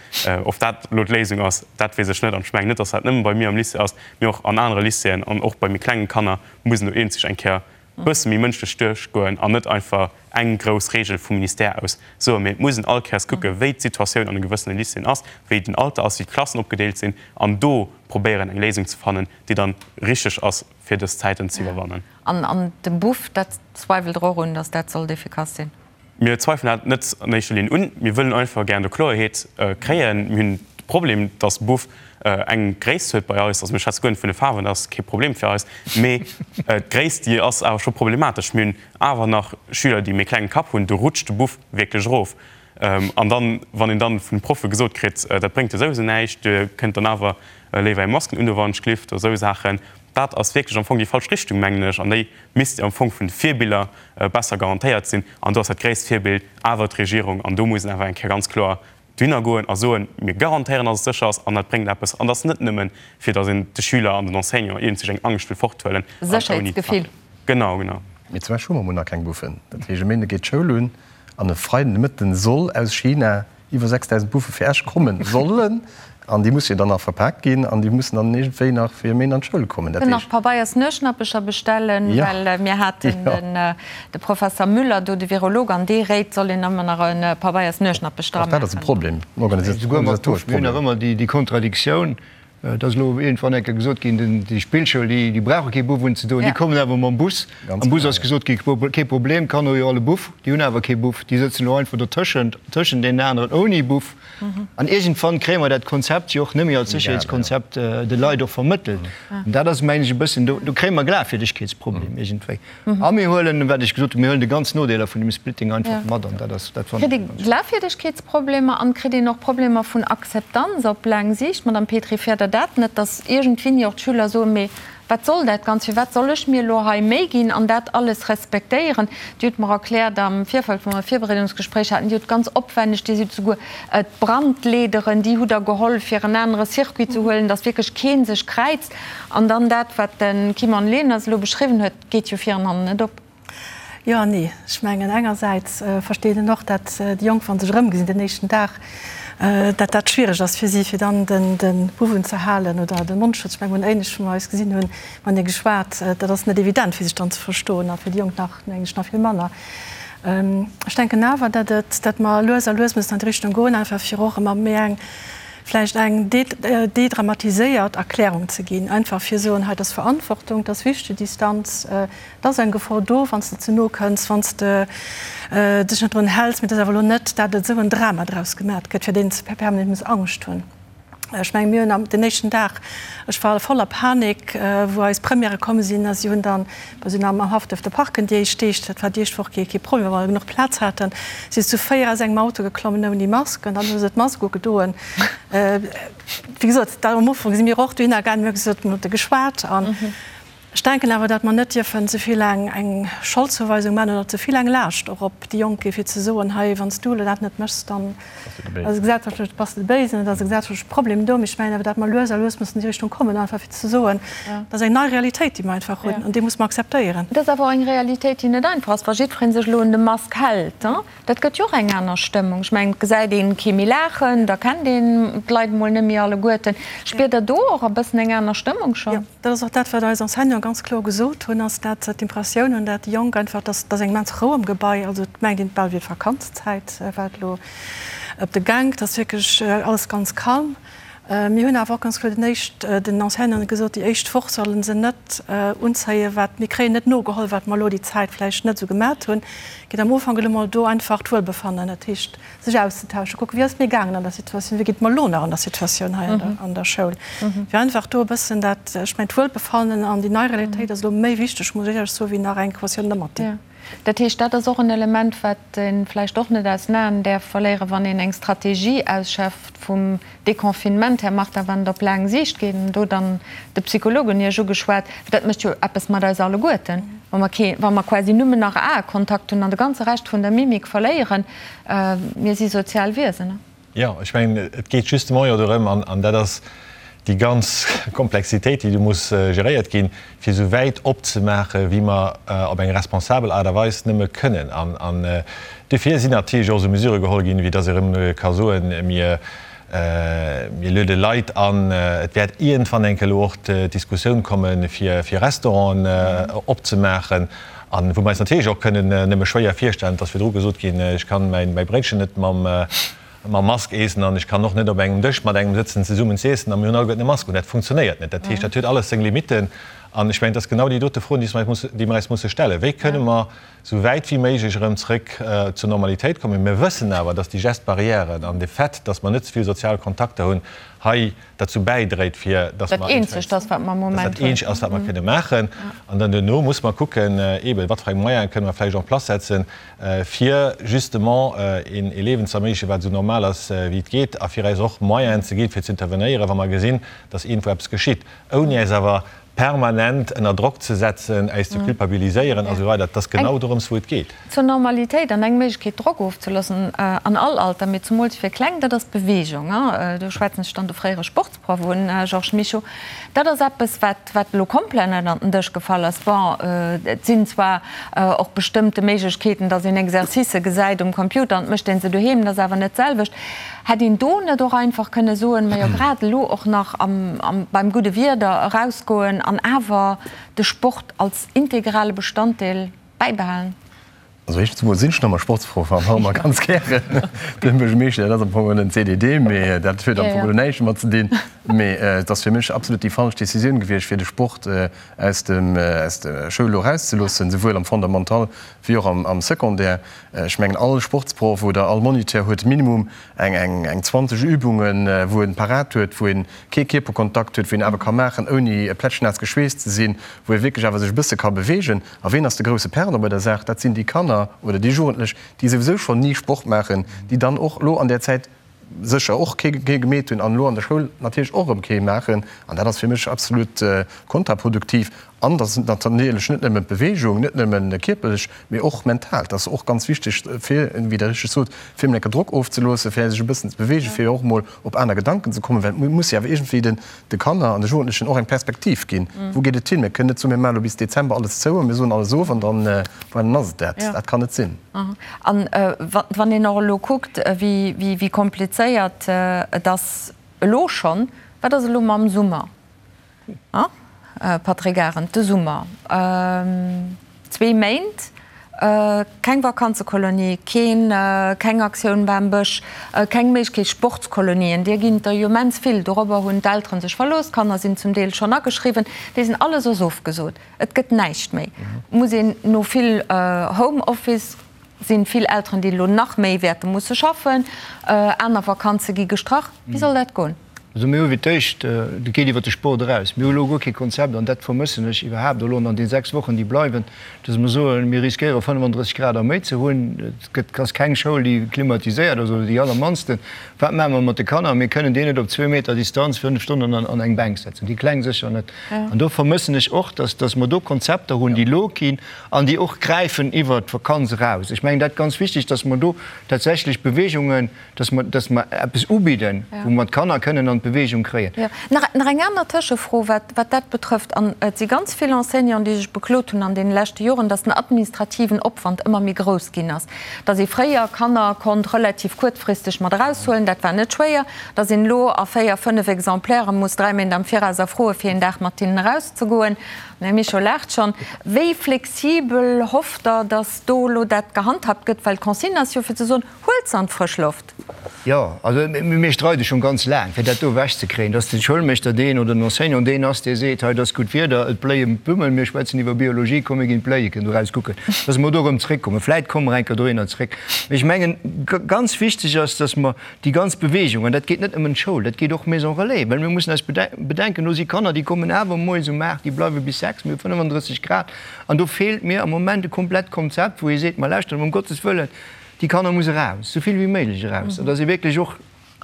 Of dat elo d'Léisung ass, dat weess ech net. An ech mengen net, dass dat nëmme bei mir am Lycée ass, mee och an anere Lycéeën an och bei méi klengen Kanner muss en do eenzeg eng Kéier bësse méi mënschlech duerchgoen an net einfach eng grouss Regel vum Ministère aus soen, mee et muss een all Kéiers kucke wéi d'Situatioun an de gewëssene Lycéeën ass, wéi den Alter ass, wéi d'Klassen opgedeelt sinn an do probéieren eng Léisung ze fannen, déi dann richteg ass fir dës Zäiten ze iwwerwannen. An de Buff, dat zweiwelt Der och un, datt dat sollt efficace sinn? Mir zweifelen dat net an éischter Linn un. Mir wëllen einfach gären do Kloerheet kréien. Mir hunn de Problem, dass Buff eng Gréisst huet bei eis. Also mir schwätze guer net vun de Faarwen, dat ass kee Problem fir eis. Mee d'Gréisst, déi ass awer scho problematesch. Mir hunn awer nach Schüler, déi méi klengen Kapp hunn, do rutscht de Buff wierklech erof. An dann, wann een dann vun de Proffe gesot kritt, dat bréngt jo souwisou näischt, dir kënnt dann awer léiwer är Masken undoen, wann et schlift oder esou Saachen, dat ass wierklech am Fong déi falsch Richtung, mengen ech. An déi misst am Fong vun de Virbiller besser garantéiert sinn. An do ass dat gréisst Virbild awer d'Regierung. An do muss een awer eng Kéier ganz kloer dohinner goen a soen, Mir garantéieren, datt et sécher ass an dat bréngt eppes. An dat ass net nëmmen, fir datt een de Schüler an den Enseignant iergendwéi eng Angscht wëll forthuelen. Sécherheetsgefill. Genau, genau. Mee zum Beispill hu mer emol nach keng Buffen. Dat heescht, e Méinde geet d'Schoul un an e Freiden de Mëtten soll aus China iwwer 6.000 Buffe fir Esch kommen sollen, an déi musse jo dann nach verpaakt ginn an déi mussen dann iergendwéi nach fir e Méint an d'Schoul kommen. Dat Kënnen nach Pabeiers Nueschnappecher bestellen, well mir haten de Professer Müller do, de Virolog, an dee réit, soll een ëmmer nach e Pabeiers Nueschnappech dra Och dat ass e maachen. Problem, en organisatorescht Mir hunn Problem. nach ëmmer déi Kontradiktioun, Et ass elo iergendwann eng Kéier gesot ginn, déi Spillschoul, déi brauche kee Buff unzedoen, déi kommen awer mam Bus. Am Bus ass gesot ginn, kee Problem, d'Kanner hu jo all e Buff. Déi hunn awer kee Buff, déi sëtzen elo einfach dotëschent, tëschent deenen aneren ouni Buff. An iergendwann kréie mer dat Konzept jo och net méi als Sécherheetskonzept de Leit och vermëttelt. An dat ass, mengen ech, e bëssen, do kréie mer e Glafwierdegkeetsproblem iergendwéi. A mir huelen, wat ech gesot hunn, mir huelen de ganz Nodeeler vun dem Splitting einfach mat an dat ass, dat fannen ech ganz. Kritt ee Glafwierdegkeetsproblemer an kritt een och Problemer vun Akzeptanz op laang Siicht? Madame Petry, fäert Der dat net, datt iergendwéini och d'Schüler soen, mee wat soll dat Ganzt, firwat soll ech mir elo hei Méi ginn an dat alles respektéieren? Dir hutt mer erkläert am Virfeld, wou mer e Virbereedungsgespréich haten, Dir hutt ganz opwänneg, Dir sidd souguer d'Brandleederen, déi hutt Der geholl, fir en anere Circuit ze huelen, datt wierklech kee sech kräizt. An dann dat, wat de Kimon Leners elo beschriwwen huet, geet jo vir an hannen net op. Jo an nee. Ech mengen, engersäits versteet een och, dat déi Jonk, wa se sech erëmgesinn den éischten Dag, dat dat schwiereg ass fir si, fir dann de Buff unzehalen oder de Mondschutz. Ech mengen, mir hunn éinescht, wou mer eis gesinn hunn, matenee geschwat, dat ass net evident, fir sech dann ze verstoen a fir déi Jonk nach, mengen ech, nach vill manner. Ech denken awer, dat et, dat mer lues a lues mussen an déi Richtung goen, einfach fir och ëmmer méi eng, vläicht eng dedramatiséiert Erklärung ze ginn, einfach fir soen, hei, dat ass Verantwortung, dat ass wichteg, Distanz, et ass eng Gefor do, wann s de ze no kënns, wann s de dech net drun häls, mee et ass awer elo net, dat et esou en Drama draus gemat gëtt, fir deen s de permanent muss Angscht hunn. Ech mengen, mir hunn am den éischten Dag, ech war voller Panik, wou eis Premièrë komm sinn a si hunn dann, mer sinn am Haff duerfte parken déi éischt Deeg, dat war déi éischt Woch kee kee Problem, well mer genuch Plaz haten, si zu 4 aus engem Auto geklommen ouni Mask an dann hu se d'Mask ugedoen. Wéi gesot, da am Ufank si mir och dohinner gaangen, mir hu gesot, mir hu geschwat an. Ech denken awer, dat mer net dierfen ze vill eng eng Scholdzouweisung maachen oder ze vill eng Laascht och op déi Jonk gi fir ze soen, hei wann s du elo dat net méchs, dann ass e gesellschaftlech, bass de de Béisen, et ass e gesellschaftleche Problem do. Mee ech mengen awer, dat mer lues a lues mussen an déi Richtung kommen, einfach fir ze soen, dat ass eng nei Realitéit, déi mer einfach hunn an déi muss mer akzeptéieren. Et ass awer och eng Realitéit, déi net einfach ass, wa jiddweree sech elo un de Mask hält. Dat gëtt jo och eng aner Stëmmung. Ech mengen, et gesäit een kee méi laachen, da kennt een d'Leit emol net méi alleguerten. Spiert Der do och e bëssen eng aner Stëmmung schonn? Jo, dat ass och dat, wat eis Enseignanten ganz kloer gesot hunn, ass dat se d'Impressioun hunn, dat déi Jonk einfach, dass dass eng immens Rou am Gebai, also et mengt een, et bal wier d'Vakanzzäit, wat elo op de Gank, et ass wierklech alles ganz calme. Mir hunn awer och ganz kloer den éischt, den Enseignanten gesot, déi éischt Woch solle se net unzéien, wat mir kréien net nogeholl, wat mer elo déi Zäit vläicht net esou gemat hunn. Geet am Ufank elo mol do einfach d'Wuelbefannen, dat heescht sech auszetauschen, kucken, wéi ass et mir gaangen an der Situatioun, wéi geet et mer elo nach an der Situatioun hei an der Schoul, fir einfach do e bëssen dat, ech mengen d'Wuelbefannen an déi nei Realitéit ass elo méi wichteg, muss ech éierlech soen, wéi nach eng Quotioun Ëmmerti. Dat heescht, dat ass och en Element, wat ee vläicht och net aus den Aen däerf verléieren, wann een eng Strategie ausschafft vum Deconfinement, Här Martin, wann et op laang Siicht geet, an do dann de Psycholog un Iech ugeschwat, well dat mécht jo eppes mat eis alleguerten, wa mer kee, wa mer quasi nëmmen nach Aekontakt hunn an de ganze Rescht vun der Mimik verléieren. Mir si sozial Wiesen. Jo, ech mengen, et geet justement jo dorëm, an dat ass déi ganz Komplexitéit, déi do muss geréiert ginn, fir esou wäit opzemaachen, wéi mer op eng responsabel Aart a Weis nëmme kënnen. An duerfir sinn natierlech och esou Mesurë geholl ginn, wéi dass ee erëm ka soen, mir luede Leit an. Et wäert iergendwann eng Kéier elo och d'Diskussioun kommen, fir Restauranten opzemaachen, a wou mer eis natierlech och kënnen nëmme schwéier virstellen, et ass virdru gesot ginn, ech kann mäi Bréitchen net mam Mask eessen an ech kann och net op engem Dësch mat engem sëtzen zesummen z'iessen a mir hunn alleguerten e Mask un. Dat funktionéiert net. Dat heescht, dat huet alles seng Limitten. An ech mengen, et ass genau déi dote Froen, déi mer eis musse stellen. Wéi kënne mer esou wäit wéi méiglech erëm zrëck zur Normalitéit kommen? Mir wëssen awer, dass déi Gestes barrières an de Fait, dass mer net ze vill sozial Kontakter hunn, hei derzou bäidréit, fir dass mer. Dat eenzegt ass, wat mer am Moment hunn. Dass dat eenzegt ass, wat mer kënne maachen. An dann duerno muss mer kucken, eeben, wat fir eng Moyene kënne mer vläicht en place setzen, fir justement een Liewen ze erméiglechen, wat esou normal ass, wéi et geet, a fir eis och Moyenen ze ginn, fir ze intervenéieren, wa mer gesinn, dass iergendwou eppes geschitt, ouni äis awer permanent ënner Drock ze setzen, äis ze culpabiliséieren a sou weider. Et ass genau dorëms, wou et geet. Zur Normalitéit an eng Méiglechkeet, Drock ofzeloossen, an all Alter, mee zumools fir Kleng, dat ass d'Beweegung. Do schwätzen ech dann de fréiere Sportsproff un, Georges Mischo. Dat ass eppes, wat, wat elo komplett ënnert den Dësch gefall ass. Bon, et sinn zwar och bestëmmte Méiglechkeeten, datt een Exercicë gesäit um Computer an et mécht ee se doheem, dat ass awer net d'selwecht. Hätt een do net och einfach kënne soen, majo grad elo och nach am, beim gudde Wieder erausgoen an awer de Sport als integrale Bestanddeel bäibehalen? Also éischtens emol sinn ech nach emmer Sportsproff an och emmer ganz gären den Buergermeeschter. Dat ass am Fong en CDD, mee dat huet am Fong elo näischt domat ze dinn. Mee et ass fir mech absolut déi falsch Decisioun gewiescht, fir de Sport aus dem, aus der Schoul elo erauszeloossen, souwuel am Fondamental wéi och am Secondaire. Ech mengen, all Sportsproff oder all Moniteur huet minimum eng, eng 20 Übungen, wou en parat huet, wou en kee Kierperkontakt huet, wou en awer ka maachen, ouni plätschnaass geschweesst ze sinn, wou e wierklech awer sech e bësse ka beweegen. A ween ass de grousse Perdant bei der Saach? Dat sinn déi Kanner oder déi Jugendlech, déi souwisou schonn ni Sport maachen, déi dann och elo an där Zäit sécher och kee gemeet hunn an elo an der Schoul natierlech och erëm kee maachen. An dat ass fir mech absolut kontraproduktiv. An dat ass natierlech net nëmmen d'Beweegung, net nëmmen kierperlech, mee och mental. Dat ass och ganz wichteg, fir, wéi Der richteg sot, fir emol enke Drock ofzeloossen, fir sech e bëssen ze beweegen, fir och emol op aner Gedanken ze kommen, well et muss jo awer iergendwéi den de Kanner an de Jugendlechen och eng Perspektiv ginn, Wou geet et hin? Mir kënnen net soen, mir maachen elo bis Dezember alles zou a mir soen alles of an dann, voilà, dann ass et dat. Dat kann net sinn. An wann een och elo kuckt, wéi komplizéiert et ass elo schonn, wat ass elo mam Summer? Patrick Arendt, De Summer, zwee Méint, keng Vakanzekolonie, keen, keng Aktioun Bam Bësch, keng Méiglechkeet Sportskolonien, deer ginn et der jo immens vill, dorobber hunn d'Elteren sech verlooss, d'Kanner sinn zum Deel schonn ageschriwwen, déi sinn alles ass ofgesot, et gëtt näischt méi. Muss een no vill Homeoffice, sinn vill Elteren déi elo nach méi wäerte musse schaffen, aner Vakanze gi gestrach, wéi soll dat goen? Also mir hu fir d'éischt, dat geet iwwert de Sport eraus, mir hu elo guer kee Konzept, an dat vermëssen ech iwwerhaapt elo an den 6 Wochen, déi bleiwen, dass mer soen, mir riskéiere 35 Grad a méi ze hunn. Et gëtt, ass keng Schoul, déi klimatiséiert ass, oder déi allermannsten. Wat maache mer mat de Kanner? Mir kënnen déi net op zwee Meter Distanz 5 Stonnen an eng Bänk setzen, déi Kleng sécher net. An do vermëssen ech och, dass, dass mer do Konzepter hunn, déi elo ginn an déi och gräifen iwwert d'Vakanz eraus. Ech mengen dat ganz wichteg, dass mer do tatsächlech Beweegungen, Dass mer, dass mer eppes ubidden, wou mer d'Kanner kënnen an d'Bewegung kréien. Jo. Nach, nach eng aner Tëschefro, wat, wat dat betrëfft. An et si ganz vill Enseignanten, déi sech beklot hunn an deene leschte Joren, dass den administrativen Opwand ëmmer méi grouss ginn ass. Dass ee fréier Kanner konnt relativ kuerzfristeg mat eraushuelen, dat war net schwéier. Dass een elo a véier, fënnef Exemplaire muss dräi Méint am Viraus erfroe fir een Dag mat hinnen erauszegoen. Den Här Mischo laacht schonn. Wéi flexibel hofft Der, dass do elo dat gehandhabt gëtt? Well d'Consigne ass jo fir ze soen, Huelt se an d'frësch Loft! Jo, also mir streide schonn ganz laang, fir dat do ewechzekréien, dass de Schoulmeeschter deen oder den Enseignant deen ass, dee seet, hei, et ass gutt Wieder, et bléien d'Blummen, mir schwätzen iwwer Biologie, komm mir ginn d'Bléieken do raus kucken, dass mer do erëm zréckkommen. Vläit komme mer eng Kéier dohinner zréck. Mee ech mengen, ganz wichteg ass, dass mer déi ganz Bewegung, an dat geet net nëmmen d'Schoul, dat geet och Maison Relais, well mir mussen eis bedenken, do si Kanner, déi kommen awer moies um 8, déi bleiwe bis 6, mir hu 35 Grad, an do feelt mir am Moment e komplett Konzept, wou ee seet, ma lauschtert, ëm Gottes Wëllen, Déi Kanner muss eraus, esou vill wéi méiglech eraus, an dass ee wierklech och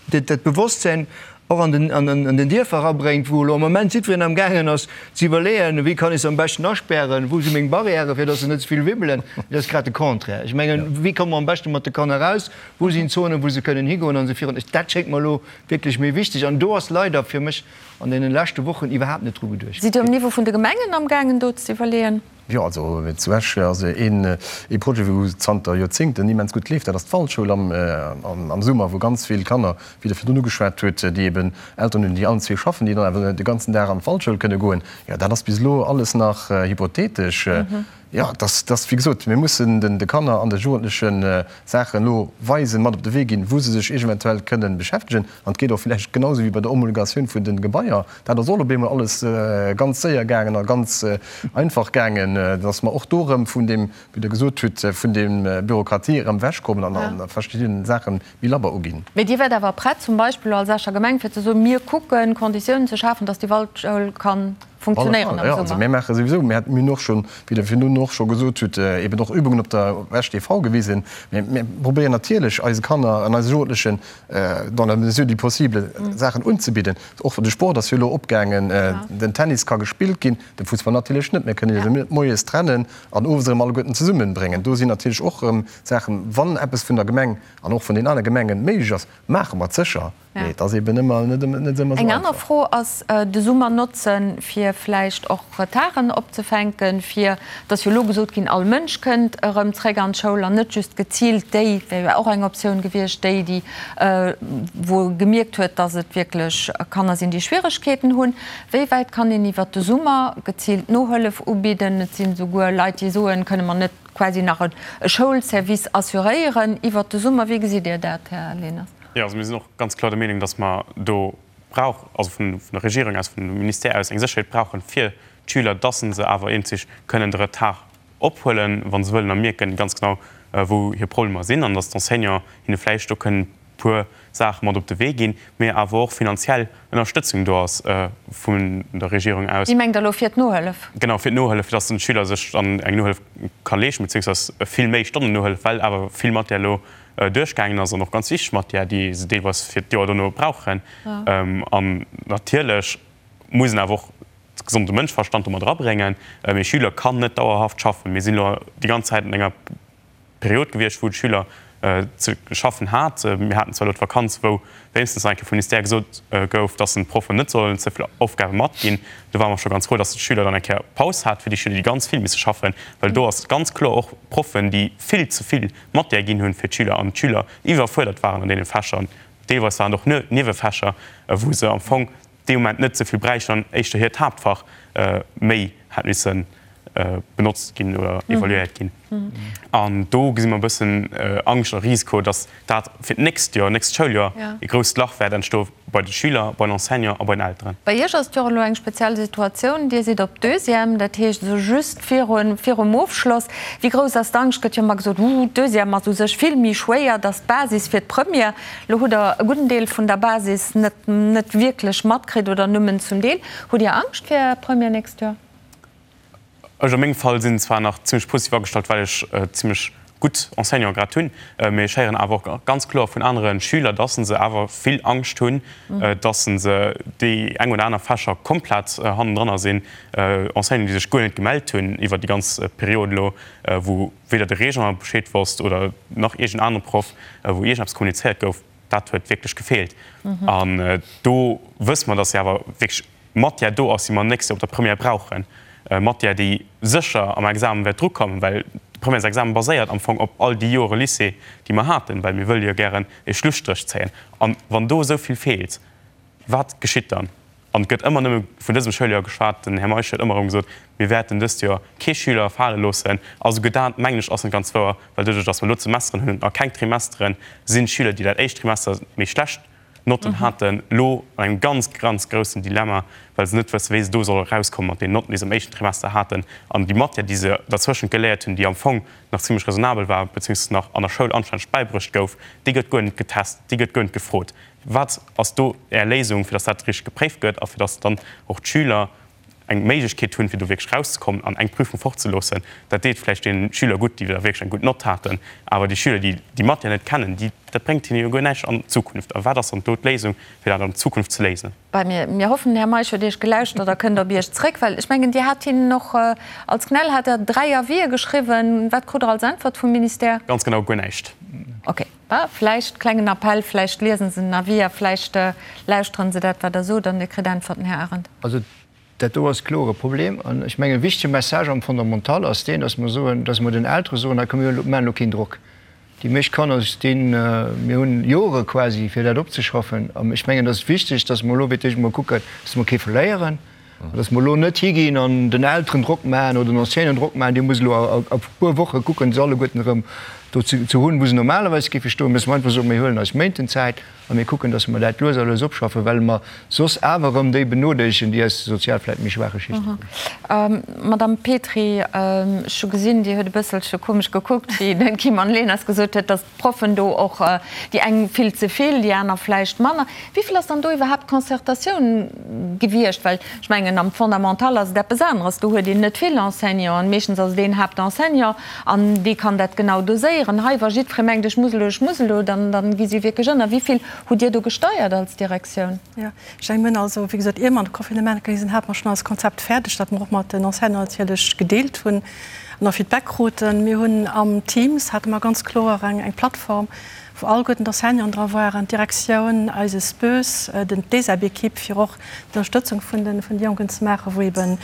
dat Bewosstsein och an den, an den Dierfer erabréngt, wou elo am Moment jiddwereen am gaangen ass ze iwwerleeën, wéi kann ech se am beschten aspären, wou si meng Barrièren, fir dass se net ze vill wibbelen. Dat ass grad de Contraire. Ech mengen, wéi komme mer am beschte mat de Kanner eraus, wou sinn Zonen, wou se kënnen higoen an esou virun. Dat schéngt mer elo wierklech méi wichteg an do ass leider fir mech an deene leschte Wochen iwwerhaapt net dru geduecht Sidd Dir um Niveau vun de Gemengen amgaangen do ze iwwerleeën? Jo, also zu Esch ass een ee Projet, wou zanter Joerzéngten immens gutt leeft, dat ass d'Waldschoul am Summer, wou ganz vill Kanner, wéi Der virdrun ugeschwat hutt, déi eben Elteren hunn, déi allen zwee schaffen, déi dann awer de ganzen Dag an d'Waldschoul kënne goen. Jo, dat ass bis elo alles nach hypothetesch. Jo, dass, dass, wéi gesot, mir mussen den de Kanner an de Jugendleche Saachen elo weisen, mat op de Wee ginn, wou se sech eventuell kënnen beschäftegen. An et geet och vläicht genau esou wéi bei der Homologatioun vun de Gebaier, Dat ass och op eemol alles ganz séier gaangen a ganz einfach gaangen, dass mer och do erëm vun deem, wéi Der gesot hutt, vun deem Bürokratie erëm ewechkommen an a verschiddenen Saache méi labber uginn. Mee Dir wäert awer prett, zum Beispill elo als Escher Gemeng, fir ze soen, mir kucken, Konditiounen ze schafen, dass déi Waldschoul ka funktionéieren am Summer? Also mir maache souwisou, mir hunn och schonn, wéi Der virdrun och scho gesot hutt, eben och Übungen op der Esch TV gewisen. Mir probéieren natierlech eise Kanner an eise Jugendlechen dans la mesure du possible Saachen unzebidden. Och de Sport ass jo elo opgaangen, den Tennis ka gespillt ginn, de Fussball natierlech net. Mir kënnen se net moies trennen an owes erëm alleguerten zesummenbréngen. Do sinn natierlech och erëm Saachen, wann eppes vun der Gemeng an och vun den anere Gemengen méiglech ass, maache mer et sécher. Mee et ass eben ëmmer net ëmmer esou einfach. Eng aner Fro ass, de Summer notzen, fir vläicht och Retarden opzefänken, fir, et ass jo elo gesot ginn, all Mënsch kënnt erëm zréck an d'Schoul an net just geziilt déi, wär jo och eng Optioun gewiescht, déi, déi wou e gemierkt huet, dass et wierklech Kanner sinn, déi Schwieregkeeten hunn. Wéi wäit kann een iwwert de Summer geziilt Nohëllef ubidden? Et sinn esouguer Leit, déi soen, kënne mer net quasi nach e Schoulservice assuréieren iwwert de Summer? Wéi gesitt Dir dat, Här Leners? Jo, also mir sinn och ganz kloer der Meenung, dass mer do brauch, also vun der Regierung aus, vum Ministère aus eng Sécherheet brauchen fir d'Schüler, dass se awer eenzeg kënnen de Retard ophuelen, wa se wëllen, a mierken ganz genau, wou hir Problemer sinn, an dass d'Enseignants hinne vläicht do kënnen e puer Saache mat op de Wee ginn, mee awer och finanziell Ënnerstëtzung do ass vun der Regierung aus. Dir mengt elo fir d'Nohëllef? Genau, fir d'Nohëllef, fir dass den Schüler sech dann eng Nohëllef ka leeschten, beziéungsweis vill méi Stonnen Nohëllef, well awer vill Matière elo duerchgaangen ass an och ganz wichteg Matière, déi se deelweis fir d'Joer dono brauchen. An natierlech muss een awer och de gesonde Mënschverstand do mat erabréngen. Ee Schüler kann net dauerhaft schaffen. Mir sinn elo déi ganz Zäit an enger Period gewiescht, wou de Schüler ze schaffen hat. Mir haten zwar elo d'Vakanz, wou wéinstens nach eng Kéier vum Ministère gesot gouf, dass en d'Proffen net sollen ze vill Aufgabe matginn. Do ware mer scho ganz frou, dass de Schüler dann eng Kéier Paus hat, fir déi Schüler, déi ganz vill misse schaffen, well do ass ganz kloer och Proffen, déi vill ze vill Matière ginn hunn fir d'Schüler an d'Schüler iwwerfuerdert waren an deene Fächer. Deelweis waren et och Niewefächer, wou se am Fong dee Moment net ze vill bräichten an éischter hiert Haaptfach méi hätt missen. benotzt ginn oder evaluéiert ginn. An do gesi mer e bëssen Angscht a Risiko, datt dat fir d'nächst Joer, nächst Schouljoer e grousst Lach wäert entstoe bei de Schüler, bei den Enseignants a bei den Elteren. Bei Iech ass et jo och elo eng speziell Situatioun. Dir sidd op Deuxième, dat heescht esou just viru virum Ofschloss. Wéi grouss ass d'Angscht? Gëtt jo ëmmer gesot, Uuh, d'Deuxième ass u sech vill méi schwéier, dat ass d'Basis fir d'Première. Elo hutt Der e gudden Deel vun der Basis net net wierklech matkritt oder nëmmen zum Deel. Hutt Dir Angscht fir Är Première nächst Joer? Ech a mengem Fall sinn zwar nach zimlech positiv agestallt, well ech zimlech gutt Enseignanten grad hunn, mee ech héieren awer och ganz kloer vun anere Schüler, dass se awer vill Angscht hunn, dass se déi eng oder aner Fächer komplett hannendranner sinn. Enseignanten, déi sech guer net gemellt hunn iwwer déi ganz Period elo, wou weder de Régent Bescheed wosst oder nach iergend anere Proff, wou iergendeppes kommunizéiert gouf, dat huet wierklech gefeelt. An do wësse mer, dass se awer wierklech Matière do ass, déi mer nächst Joer op der Première brauchen, Matière, déi sécher am Examen wäert drukommen, well de Premièresexamen baséiert am Fong op all déi Jore Lycée, déi mer haten, well mir wëlle jo gären e Schlusstréch zéien. An wann do esou vill feelt, wat geschitt dann? An et gëtt ëmmer nëmme vun dësem Schouljoer geschwat. Den Här Meisch huet ëmmer erëm gesot, mir wäerten dëst Joer kee Schüler fale loossen. A souguer dat, mengen ech, ass net ganz wouer, well doduerch, datt mer elo d'Semesteren hunn a keng Trimesteren, sinn d'Schüler, déi dat éischt Trimester méi schlecht Notten haten, elo an engem ganz, ganz groussen Dilemma, well se net wëssen, wéi se do solle erauskommen mat deenen Notten, déi se am éischten Trimester haten, an déi Matière, déi se derzwëschent geléiert hunn, déi am Fong nach zimlech raisonnabel war, beziehungsweise nach an der Schoul anstänneg bäibruecht gouf, déi gëtt guer net getest, déi gëtt guer net gefrot. Wat ass do Är Léisung, fir datt dat richteg gepréift gëtt a fir datt dann och d'Schüler eng Méiglechkeet hunn, fir do wierklech rauszekommen an eng Prüfung fortzeloossen? Dat deet vläicht deene Schüler gutt, déi da wierklech eng gutt Nott haten, awer déi Schüler, déi déi Matière net kennen, déi, dat bréngt hinne jo guer näischt an Zukunft. A wat ass dann do d'Léisung, fir dat an Zukunft ze léisen? Bei mir, mir hoffen, den Här Meisch huet Iech gelauschtert a kënnt op Iech zréck, well ech mengen, Dir hat hinnen och, als CNEL hat Der 3 Avisë geschriwwen. Wat krut Der als Äntwert vum Ministère? Ganz genau guer näischt. Okay. Vläicht, klengen Appell, vläicht liesen se den Avis a vläicht lauschteren se dat, wat Der sot, an Dir kritt Äntwerten, Här Arendt. Also dat do ass kloer e Problem. An ech mengen, e wichtege Message am Fondamental ass deen, dass mer soen, dass mer den Eltere soen, hei komm, mir maachen elo keen Drock. Déi meescht Kanner stinn, mir hunn Jore quasi, fir dat opzeschaffen. An ech mengen, et ass wichteg, dass mer elo fir d'éischt emol kucken, dass mer kee verléieren. An dass mer elo net higinn an den Elteren Drock maachen oder den Enseignanten Drock maachen, Dir musst elo a puer Woche kucken, se alleguerten erëm do ze hunn, wou se normalerweis géife stoen. Mä dass mer einfach soen, Mir huelen eis Méinten Zäit a mir kucken, dass mer dat lues a lues opschaffen, well mer soss awer erëm déi benodeelegen, déi aus de sozial vläicht méi schwaache Schichte kommen. Madamm Petry, ech hu gesinn, Dir hutt e bësselche komesch gekuckt, wéi den Kim Leners gesot huet, dass d'Proffen do och, déi eng vill ze vill, déi aner vläicht manner. Wéi vill ass dann do iwwerhaapt Concertatioun gewiescht? Well ech mengen, am Fondamental ass et eppes aneres, do huet een net vill Enseignanten, meeschtens ass et een Haaptenseignant an dee kann dat genau doséieren. Hei, wa jiddweree mengt, ech muss elo, ech muss elo, dann, dann gi si wierklech ënner. Wéi vill hutt Dir do gesteiert als Direktioun? Jo, ech mengen, mir hunn also, wéi gesot, ier mer an de Confinement gaange sinn, hate mer schonn eist Konzept fäerdeg, dat mer och mat den Enseignanten natierlech gedeelt hunn. An och Feedback kruten. Mir hunn am Teams hate mer ganz kloer eng eng Plattform, wou alleguerten d'Enseignanten dra waren, d'Direktioun, eise SPÖS, den d'ESEB-Ekipp, fir och d'Ënnerstëtzung vun de vun de Jonken ze maachen, wou eebe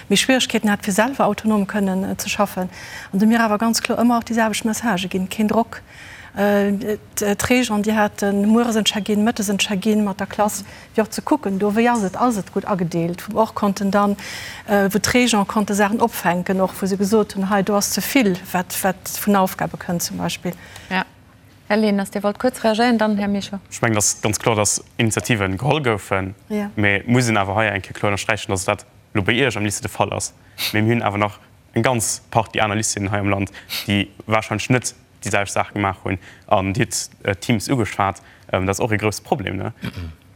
méi Schwieregkeeten hat, fir selwer autonom kënnen ze schaffen. An do hu mir awer ganz kloer ëmmer och déi selwecht Messagë ginn, Keen Drock, D'Régent, déi hate mueres en Check-in, mëttes en Check-in mat der Klass, fir och ze kucken do, wéi ass et, ass et gutt agedeelt, wou och konnten dann, wou d'Régent konnte Saachen opfänken och, wou se gesot hunn, hei do ass ze vill, wat, wat vun Aufgabe kënnt zum Beispill. Jo. Här Leners, Dir wollt kuerz reagéieren, dann Här Mischo. Ech mengen, et ass ganz kloer, dass Initiativen geholl goufen, mä et muss een awer hei eng Kéier kloer ënnersträichen, dass dat elo bei Iech am Lycée de Fall ass. Mä mir hunn awer nach eng ganz Partie aner Lycéeën hei am Land, déi warscheinlech net déi selwecht Saach gemaach hunn. An Dir hutt Teams ugeschwat, dat ass och ee grousse Problem.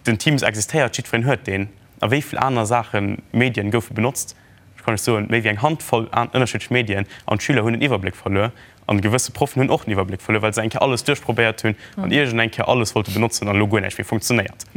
Den Teams existéiert, jiddwereen huet deen. A wéi vill aner Saachen, Medien goufe benotzt? Ech kann lech soen, méi wéi eng Handvoll ënnerschiddlech Medien. An d'Schüler hunn den Iwwerbléck verluer. An gewësse Proffen hunn och den Iwwerbléck verluer, well se eng Kéier alles duerchprobéiert hunn an iergend eng Kéier alles wollte benotzen an elo guer näischt méi funktionéiert.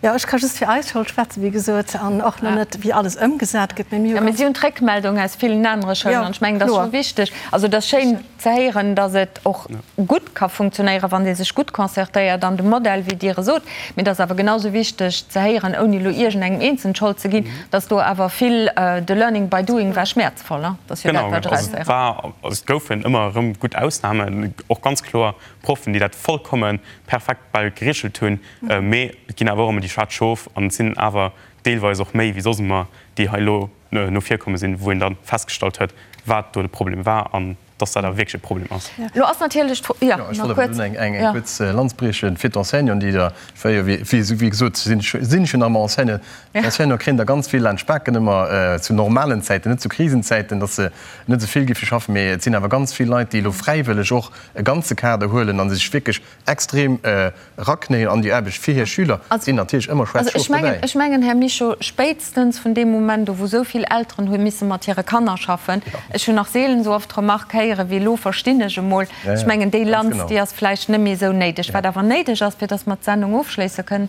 Jo, ech ka just fir eis Schoul schwätzen, wéi gesot, an och nach net, wéi alles ëmgesat gëtt. Mee mir hu Jo, mee si hunn d'Réckmeldung aus villen anere Schoulen an ech mengen, dat ass scho wichteg. Also et ass schéin ze héieren, datt et och gutt ka funktionéieren, wann ee sech gutt concertéiert an de Modell, wéi Dir e sot. Mee et ass awer genau sou wichteg ze héieren, ouni elo iergendengem Eenzelnen d'Schold ze ginn, datt do awer vill de Learning by doing war schmäerzvoll. Dat ass jo dat, wat ech eraushéieren. Genau, also et war, also et goufen ëmmer erëm gutt Ausnamen, och ganz kloer Proffen, déi dat vollkomme perfekt bal gereegelt hunn. Mee et ginn awer och ëmmer déi schwaarz Schof an et sinn awer. deelweis och méi wéi soss ëmmer, déi hei elo no vir komme sinn, wou een da festgestallt huet, wat do de Problem war an dass dat awer wierklech e Problem ass. Elo ass natierlech d'Fro, jo, nach kuerz. Ech wollt awer eng kuerz Lanz briechen fir d'Enseignanten, déi da, wéi gesot, sinn ech jo nach ëmmer Enseignant, d'Enseignanten kréien da ganz vill laanscht d'Baken ëmmer zu normalen Zäiten, net zu Krisenzäiten, dass se net esou vill géife schaffen, mee et sinn awer ganz vill Leit, déi elo fräiwëlleg och e ganze Kader huelen a sech wierklech extrem eraknéien an déi Aarbecht fir hir Schüler, sinn natierlech ëmmer schwaarz Schof dobäi. Ech mengen, Här Mischo, spéitstens vun deem Moment u wou esou vill Elteren hu misse mat hire Kanner schaffen, ech hunn nach seelen esou oft d'Remark héiere wéi elo verstinn ech emol, ech mengen déi Lanz, déi ass vläicht net méi esou néideg. Wat awer néideg ass, fir datt mer d'Sendung ofschléisse kënnen,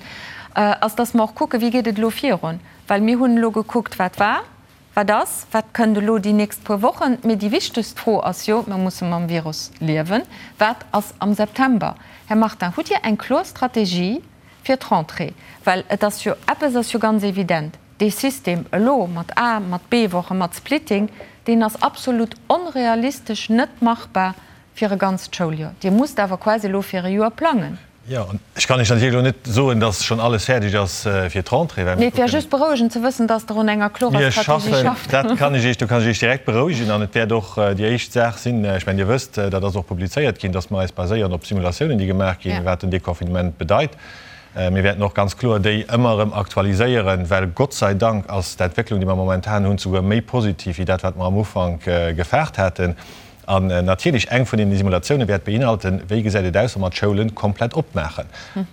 ass, datt mer och kucken, wéi geet et elo virun, well mir hunn elo gekuckt, wat war, Wat ass, wat kënnt elo déi nächst puer Wochen? Mee déi wichtegst Fro ass jo, mir musse mam Virus liewen, wat ass am September? Här Martin, hutt Dir eng kloer Strategie fir d'Rentrée? Well et ass jo, eppes ass jo ganz evident, dee System elo mat A-, mat B-Wochen, mat Splitting, deen ass absolut onrealistesch, net machbar fir e ganzt Schouljoer. Dir musst awer quasi elo fir e Joer plangen. Jo, an ech kann Iech natierlech elo net soen, dass schonn alles fäerdeg ass fir d'Rentrée, well mir Nee, et wär just berouegend ze wëssen, dass Der un enger klorer Strategie schafft. Dat kann ech Iech, do kann ech Iech direkt berouegen. An et wäert och déi éischt Saach sinn, ech mengen, Dir wësst, dat ass och publizéiert ginn, dass mer eis baséieren op Simulatiounen, déi gemaach ginn, wat den Deconfinement bedeit. Mir wäerten och ganz kloer déi ëmmer erëm aktualiséieren, well Gott sei Dank ass d'Entwécklung, déi mer momentan hunn, souguer méi positiv wéi dat, wat mer am Ufank gefaart haten. An natierlech, eng vun deene Simulatioune wäert beinhalten, wéi gesäit et aus, wa mer d'Schoulen komplett opmaachen.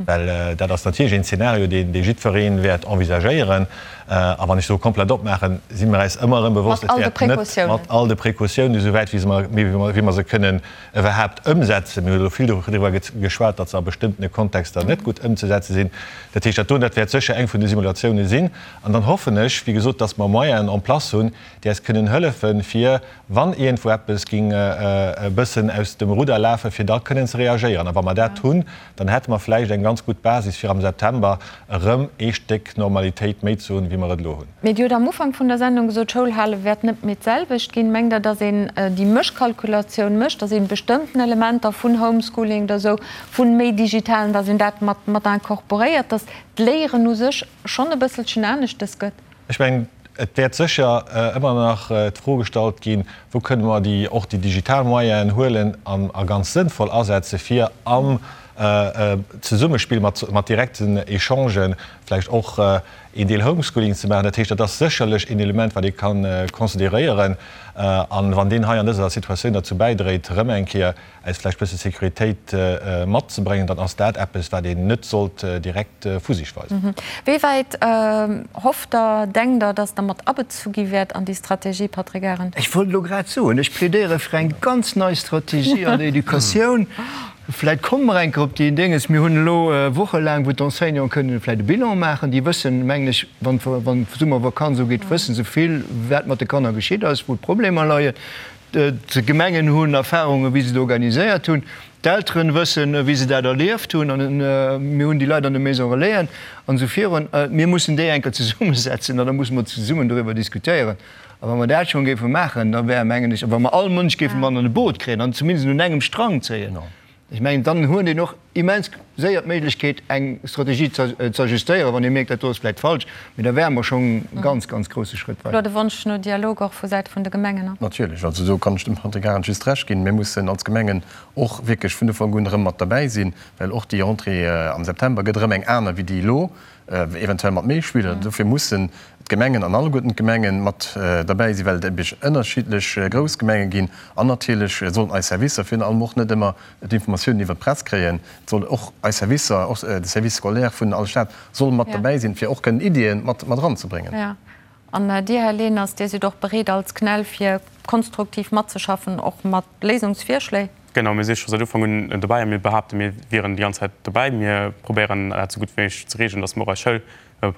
Well dat ass natierlech een Zeenario, deen dee jiddweree wäert envisagéieren. A wann ech soe komplett opmaachen, si mer äis ëmmer erëm bewosst, et wäert net mat all de Precautiounen, esou wäit wéi se mer, wéi mer se kënnen iwwerhaapt ëmsetzen. Mir hunn elo vill doriwwer geschwat, datt se a bestëmmtene Kontexter net gutt ëmzesetze sinn. Dat heescht, dat doen, dat wäert sécher eng vun de Simulatioune sinn. An dann hoffen ech, wéi gesot, datt mer Moyenen en place hunn, déi äis kënnen hëllefen, fir wann iergendwou eppes ging e bëssen aus dem Rudder lafen, fir da kënnen ze reagéieren. A wa mer dat hunn, dann hätte mer vläicht eng ganz gutt Basis, fir am September erëm ee Stéck Normalitéit méi ze hunn, wéi mer et elo hunn. Mee Dir hutt am Ufank vun der Sendung gesot, d'Schoulhale wäert net méi d'selwecht ginn. Mengt Der, datt een déi Mëschkalkulatioun mécht, datt een bestëmmten Elementer vun Homeschooling oder esou, vun méi Digitalen, datt een dat mat mat incorporéiert, datt d'Léieren u sech schonn e bësselchen aneschtes gëtt? Ech mengen, et wäert sécher ëmmer nach d'Fro gestallt ginn, Wou kënne mer déi, och déi digital Moyenen huelen an a ganz sënnvoll asetze fir am Zesummespill mat, mat direkten Echangen vläicht och een Deel Homeschooling ze maachen. Dat heescht, dat ass sécherlech een Element, wat ee ka consideréieren. An wann deen hei an dëser Situatioun derzou bäidréit, erëm eng Kéier eis vläicht bësse Sécuritéit matzebréngen, dann ass dat eppes, wat een net sollt direkt vu sech weisen. Wéi wäit hofft Der, denkt Der, datt Der mat abezu gi wäert an déi Strategie, Patrick Arendt? Ech wollt elo grad soen, ech plädéiere fir eng ganz nei Strategie an der Educatioun. Vläicht komme mer eng Kéier op déi Dénges. Mir hunn elo wochelaang, wou d'Enseignanten kënnen vläicht e Bilan maachen. Déi wëssen, mengen ech, wann d'Summervakanz ugeet, wësse se vill, wat mat de Kanner geschitt ass, wou d'Problemer leien. D'Gemengen hunn Erfahrungen, wéi se et organiséiert hunn. D'Elteren wëssen, wéi se dat erlieft hunn. An mir hunn déi Leit an de Maisons Relaisen an esou virun. Mir mussen déi eng Kéier zesummesetzen an da musse mer zesummen doriwwer diskutéieren. A wa mer dat schonn géife maachen, da wär, mengen ech, wa mer all Mënsch géife mat an e Boot kréien an zumindest un engem Strang zéien, Ech mengen, dann huet een och immens séier d'Méiglechkeet, eng Strategie ze ajustéieren, wann ee mierkt, dat do ass vläicht falsch. Mee da wäre mer schonn e ganz, ganz grousse Schrëtt weider. Elo de Wonsch no Dialog och vu Säit vun de Gemengen. Natierlech. Also do kann ech dem Patrick Arendt just Recht ginn. Mir mussen als Gemengen och wierklech vun Ufank un erëm mat derbäi sinn, well och déi Rentrée am September gëtt erëm eng aner wéi déi elo. eventuell mat méi Schüler. Dofir mussen d'Gemengen an alleguerten d'Gemenge mat derbäi sinn, well et ebe ënnerschiddlech grouss Gemenge ginn. An natierlech sollen eis Servicer virun allem och net ëmmer d'Informatiounen iwwert d'Press kréien. Et soll och eis Servicer, och de Service scolaire vun all Stad soll mat derbäi sinn, fir och kënnen Iddien mat eranzebréngen. An Dir, Här Leners, Dir sidd och bereet als CNEL fir konstruktiv matzeschaffen, och mat Léisungsvirschléi? Genau, mir si scho säit Ufank un dobäi a mir behaapten, mir wieren déi ganz Zäit dobäi. Mir probéieren dat esou gutt wéi méiglech ze regeln, datt mer och eis Schoul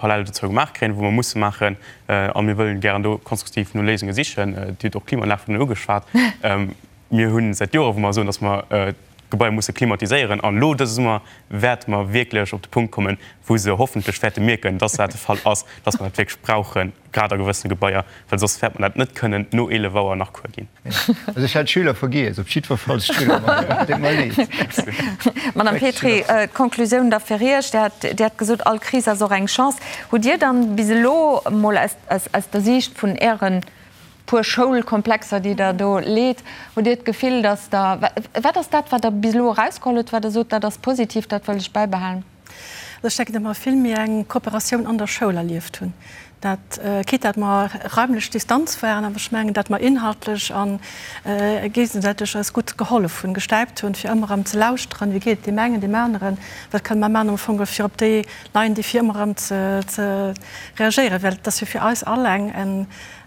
parallel dozou gemaach kréien, wou mer musse maachen. A mir wëllen gären do konstruktiv no Léisunge sichen. Dir hutt och d'Klimaanlag virun ugeschwat. Mir hu säit Jore wou mer soen, datt mer. Gebaier musse klimatiséieren. An elo dëse Summer wäerte mer wierklech op de Punkt kommen, wou se hoffentlech wäerte mierken, dass dat de Fall ass, dass mer dat wierklech brauchen, grad a gewëssene Gebaier, well soss wäerte mer dat net kënnen no 11 Auer nach Cours ginn. Also ech hat d'Schüler vergiess, op jiddwer Fall d'Schüler, deet mer leed. Madame Petry, d'Konklusioun da fir Iech, Dir hat, Dir hat gesot, all Kris ass och eng Chance. Hutt Dir dann bis elo emol aus, aus der Siicht vun Ären puer Schoulkomplexer, déi Der do leet, hutt Dir d'Gefill, dass Der, wat ass dat, wat Der bis elo erausgeholl hutt, wat Der sot, dat ass positiv, dat wëll ech bäibehalen? Also ech denken, datt mer vill méi eng Kooperatioun an der Schoul erlieft hunn. Dat, quitte datt mer raimlech Distanz waren, awer ech mengen, datt mer inhaltlech a géigesäiteg eis gutt gehollef hunn, gestäipt hunn, fir ëmmer erëm ze lauschteren, wéi geet et deem engen, deem aneren, wat kënne mer maachen am Fong, fir op déi neien Défie ëmmer erëm ze reagéieren, well et ass jo fir eis all eng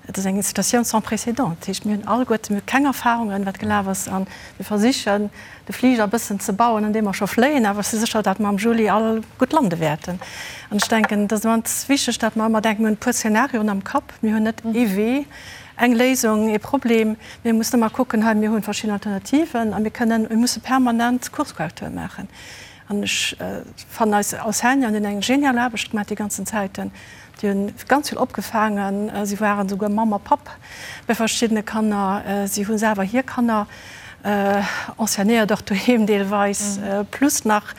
Et ass eng Situatioun sans précédent. Dat heescht, mir hunn alleguerte, mir hu keng Erfahrungen, wat gelaf ass, a mir versichen, de Fliger e bëssen ze bauen, an deem mer scho fléien. Awer ech si sécher, datt mer am Juli all gutt lande wäerten. An ech denken, et ass immens wichteg, datt mer ëmmer denken, mir hunn e puer Szenarioen am Kapp. Mir hunn net ee Wee, eng Léisung, ee Problem. Mir mussen ëmmer kucken, hei, mir hu verschidden Alternativen a mir kënnen, mir musse permanent Kurskorrektur maachen. An ech fannen, eis Enseignanten hunn eng genial Aarbecht gemaach déi ganzen Zäiten. Déi hunn ganz vill opgefaangen. Si waren esouguer Mamm a Papp bei verschiddene Kanner. Si hu selwer hir Kanner enseignéiert, och doheem deelweis, plus nach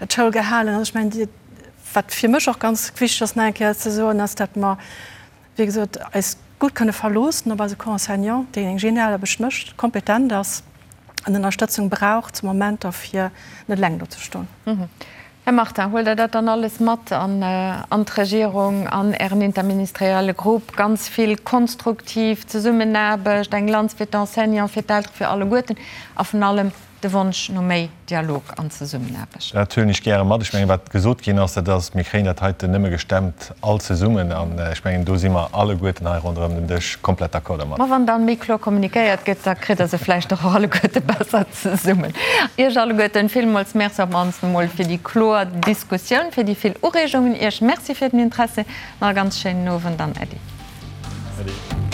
d'Schoul gehalen. Also ech mengen, wat fir mech och ganz wichteg ass nach eng Kéier ze soen, ass, datt mer, wéi gesot, eis gutt kënne verloossen op eise Corps enseignant, deen eng genial Aarbecht mécht, kompetent ass an Ënnerstëtzung brauch zu Momenter, fir net eleng do ze stoen. Här Martin, huelt Der dat dann alles mat an d'Regierung, an Ären interministerielle Grupp? Ganz vill konstruktiv Zesummenaarbecht, eng Lanz fir d'Enseignants, fir d'Eltere, fir alleguerten a vun allem de Wonsch no méi Dialog an Zesummenaarbecht. Dat huelen ech gäre mat. Ech mengen, wat gesot ginn ass, dat ass, mir kréien dat heiten nëmme gestemmt all zesummen. An ech mengen, do si mer alleguerten hei ronderëm den Dësch komplett d'accord dermat. Ma wann dann méi kloer kommunikéiert gëtt, da kritt Der se vläicht och alleguerte besser zesummen. Iech alleguerten villmools Merci op d'mannst emol fir déi kloer Diskussioun, fir déi vill Ureegungen. Iech Merci fir den Interessi. Nach e ganz schéinen Owend an Äddi. Äddi.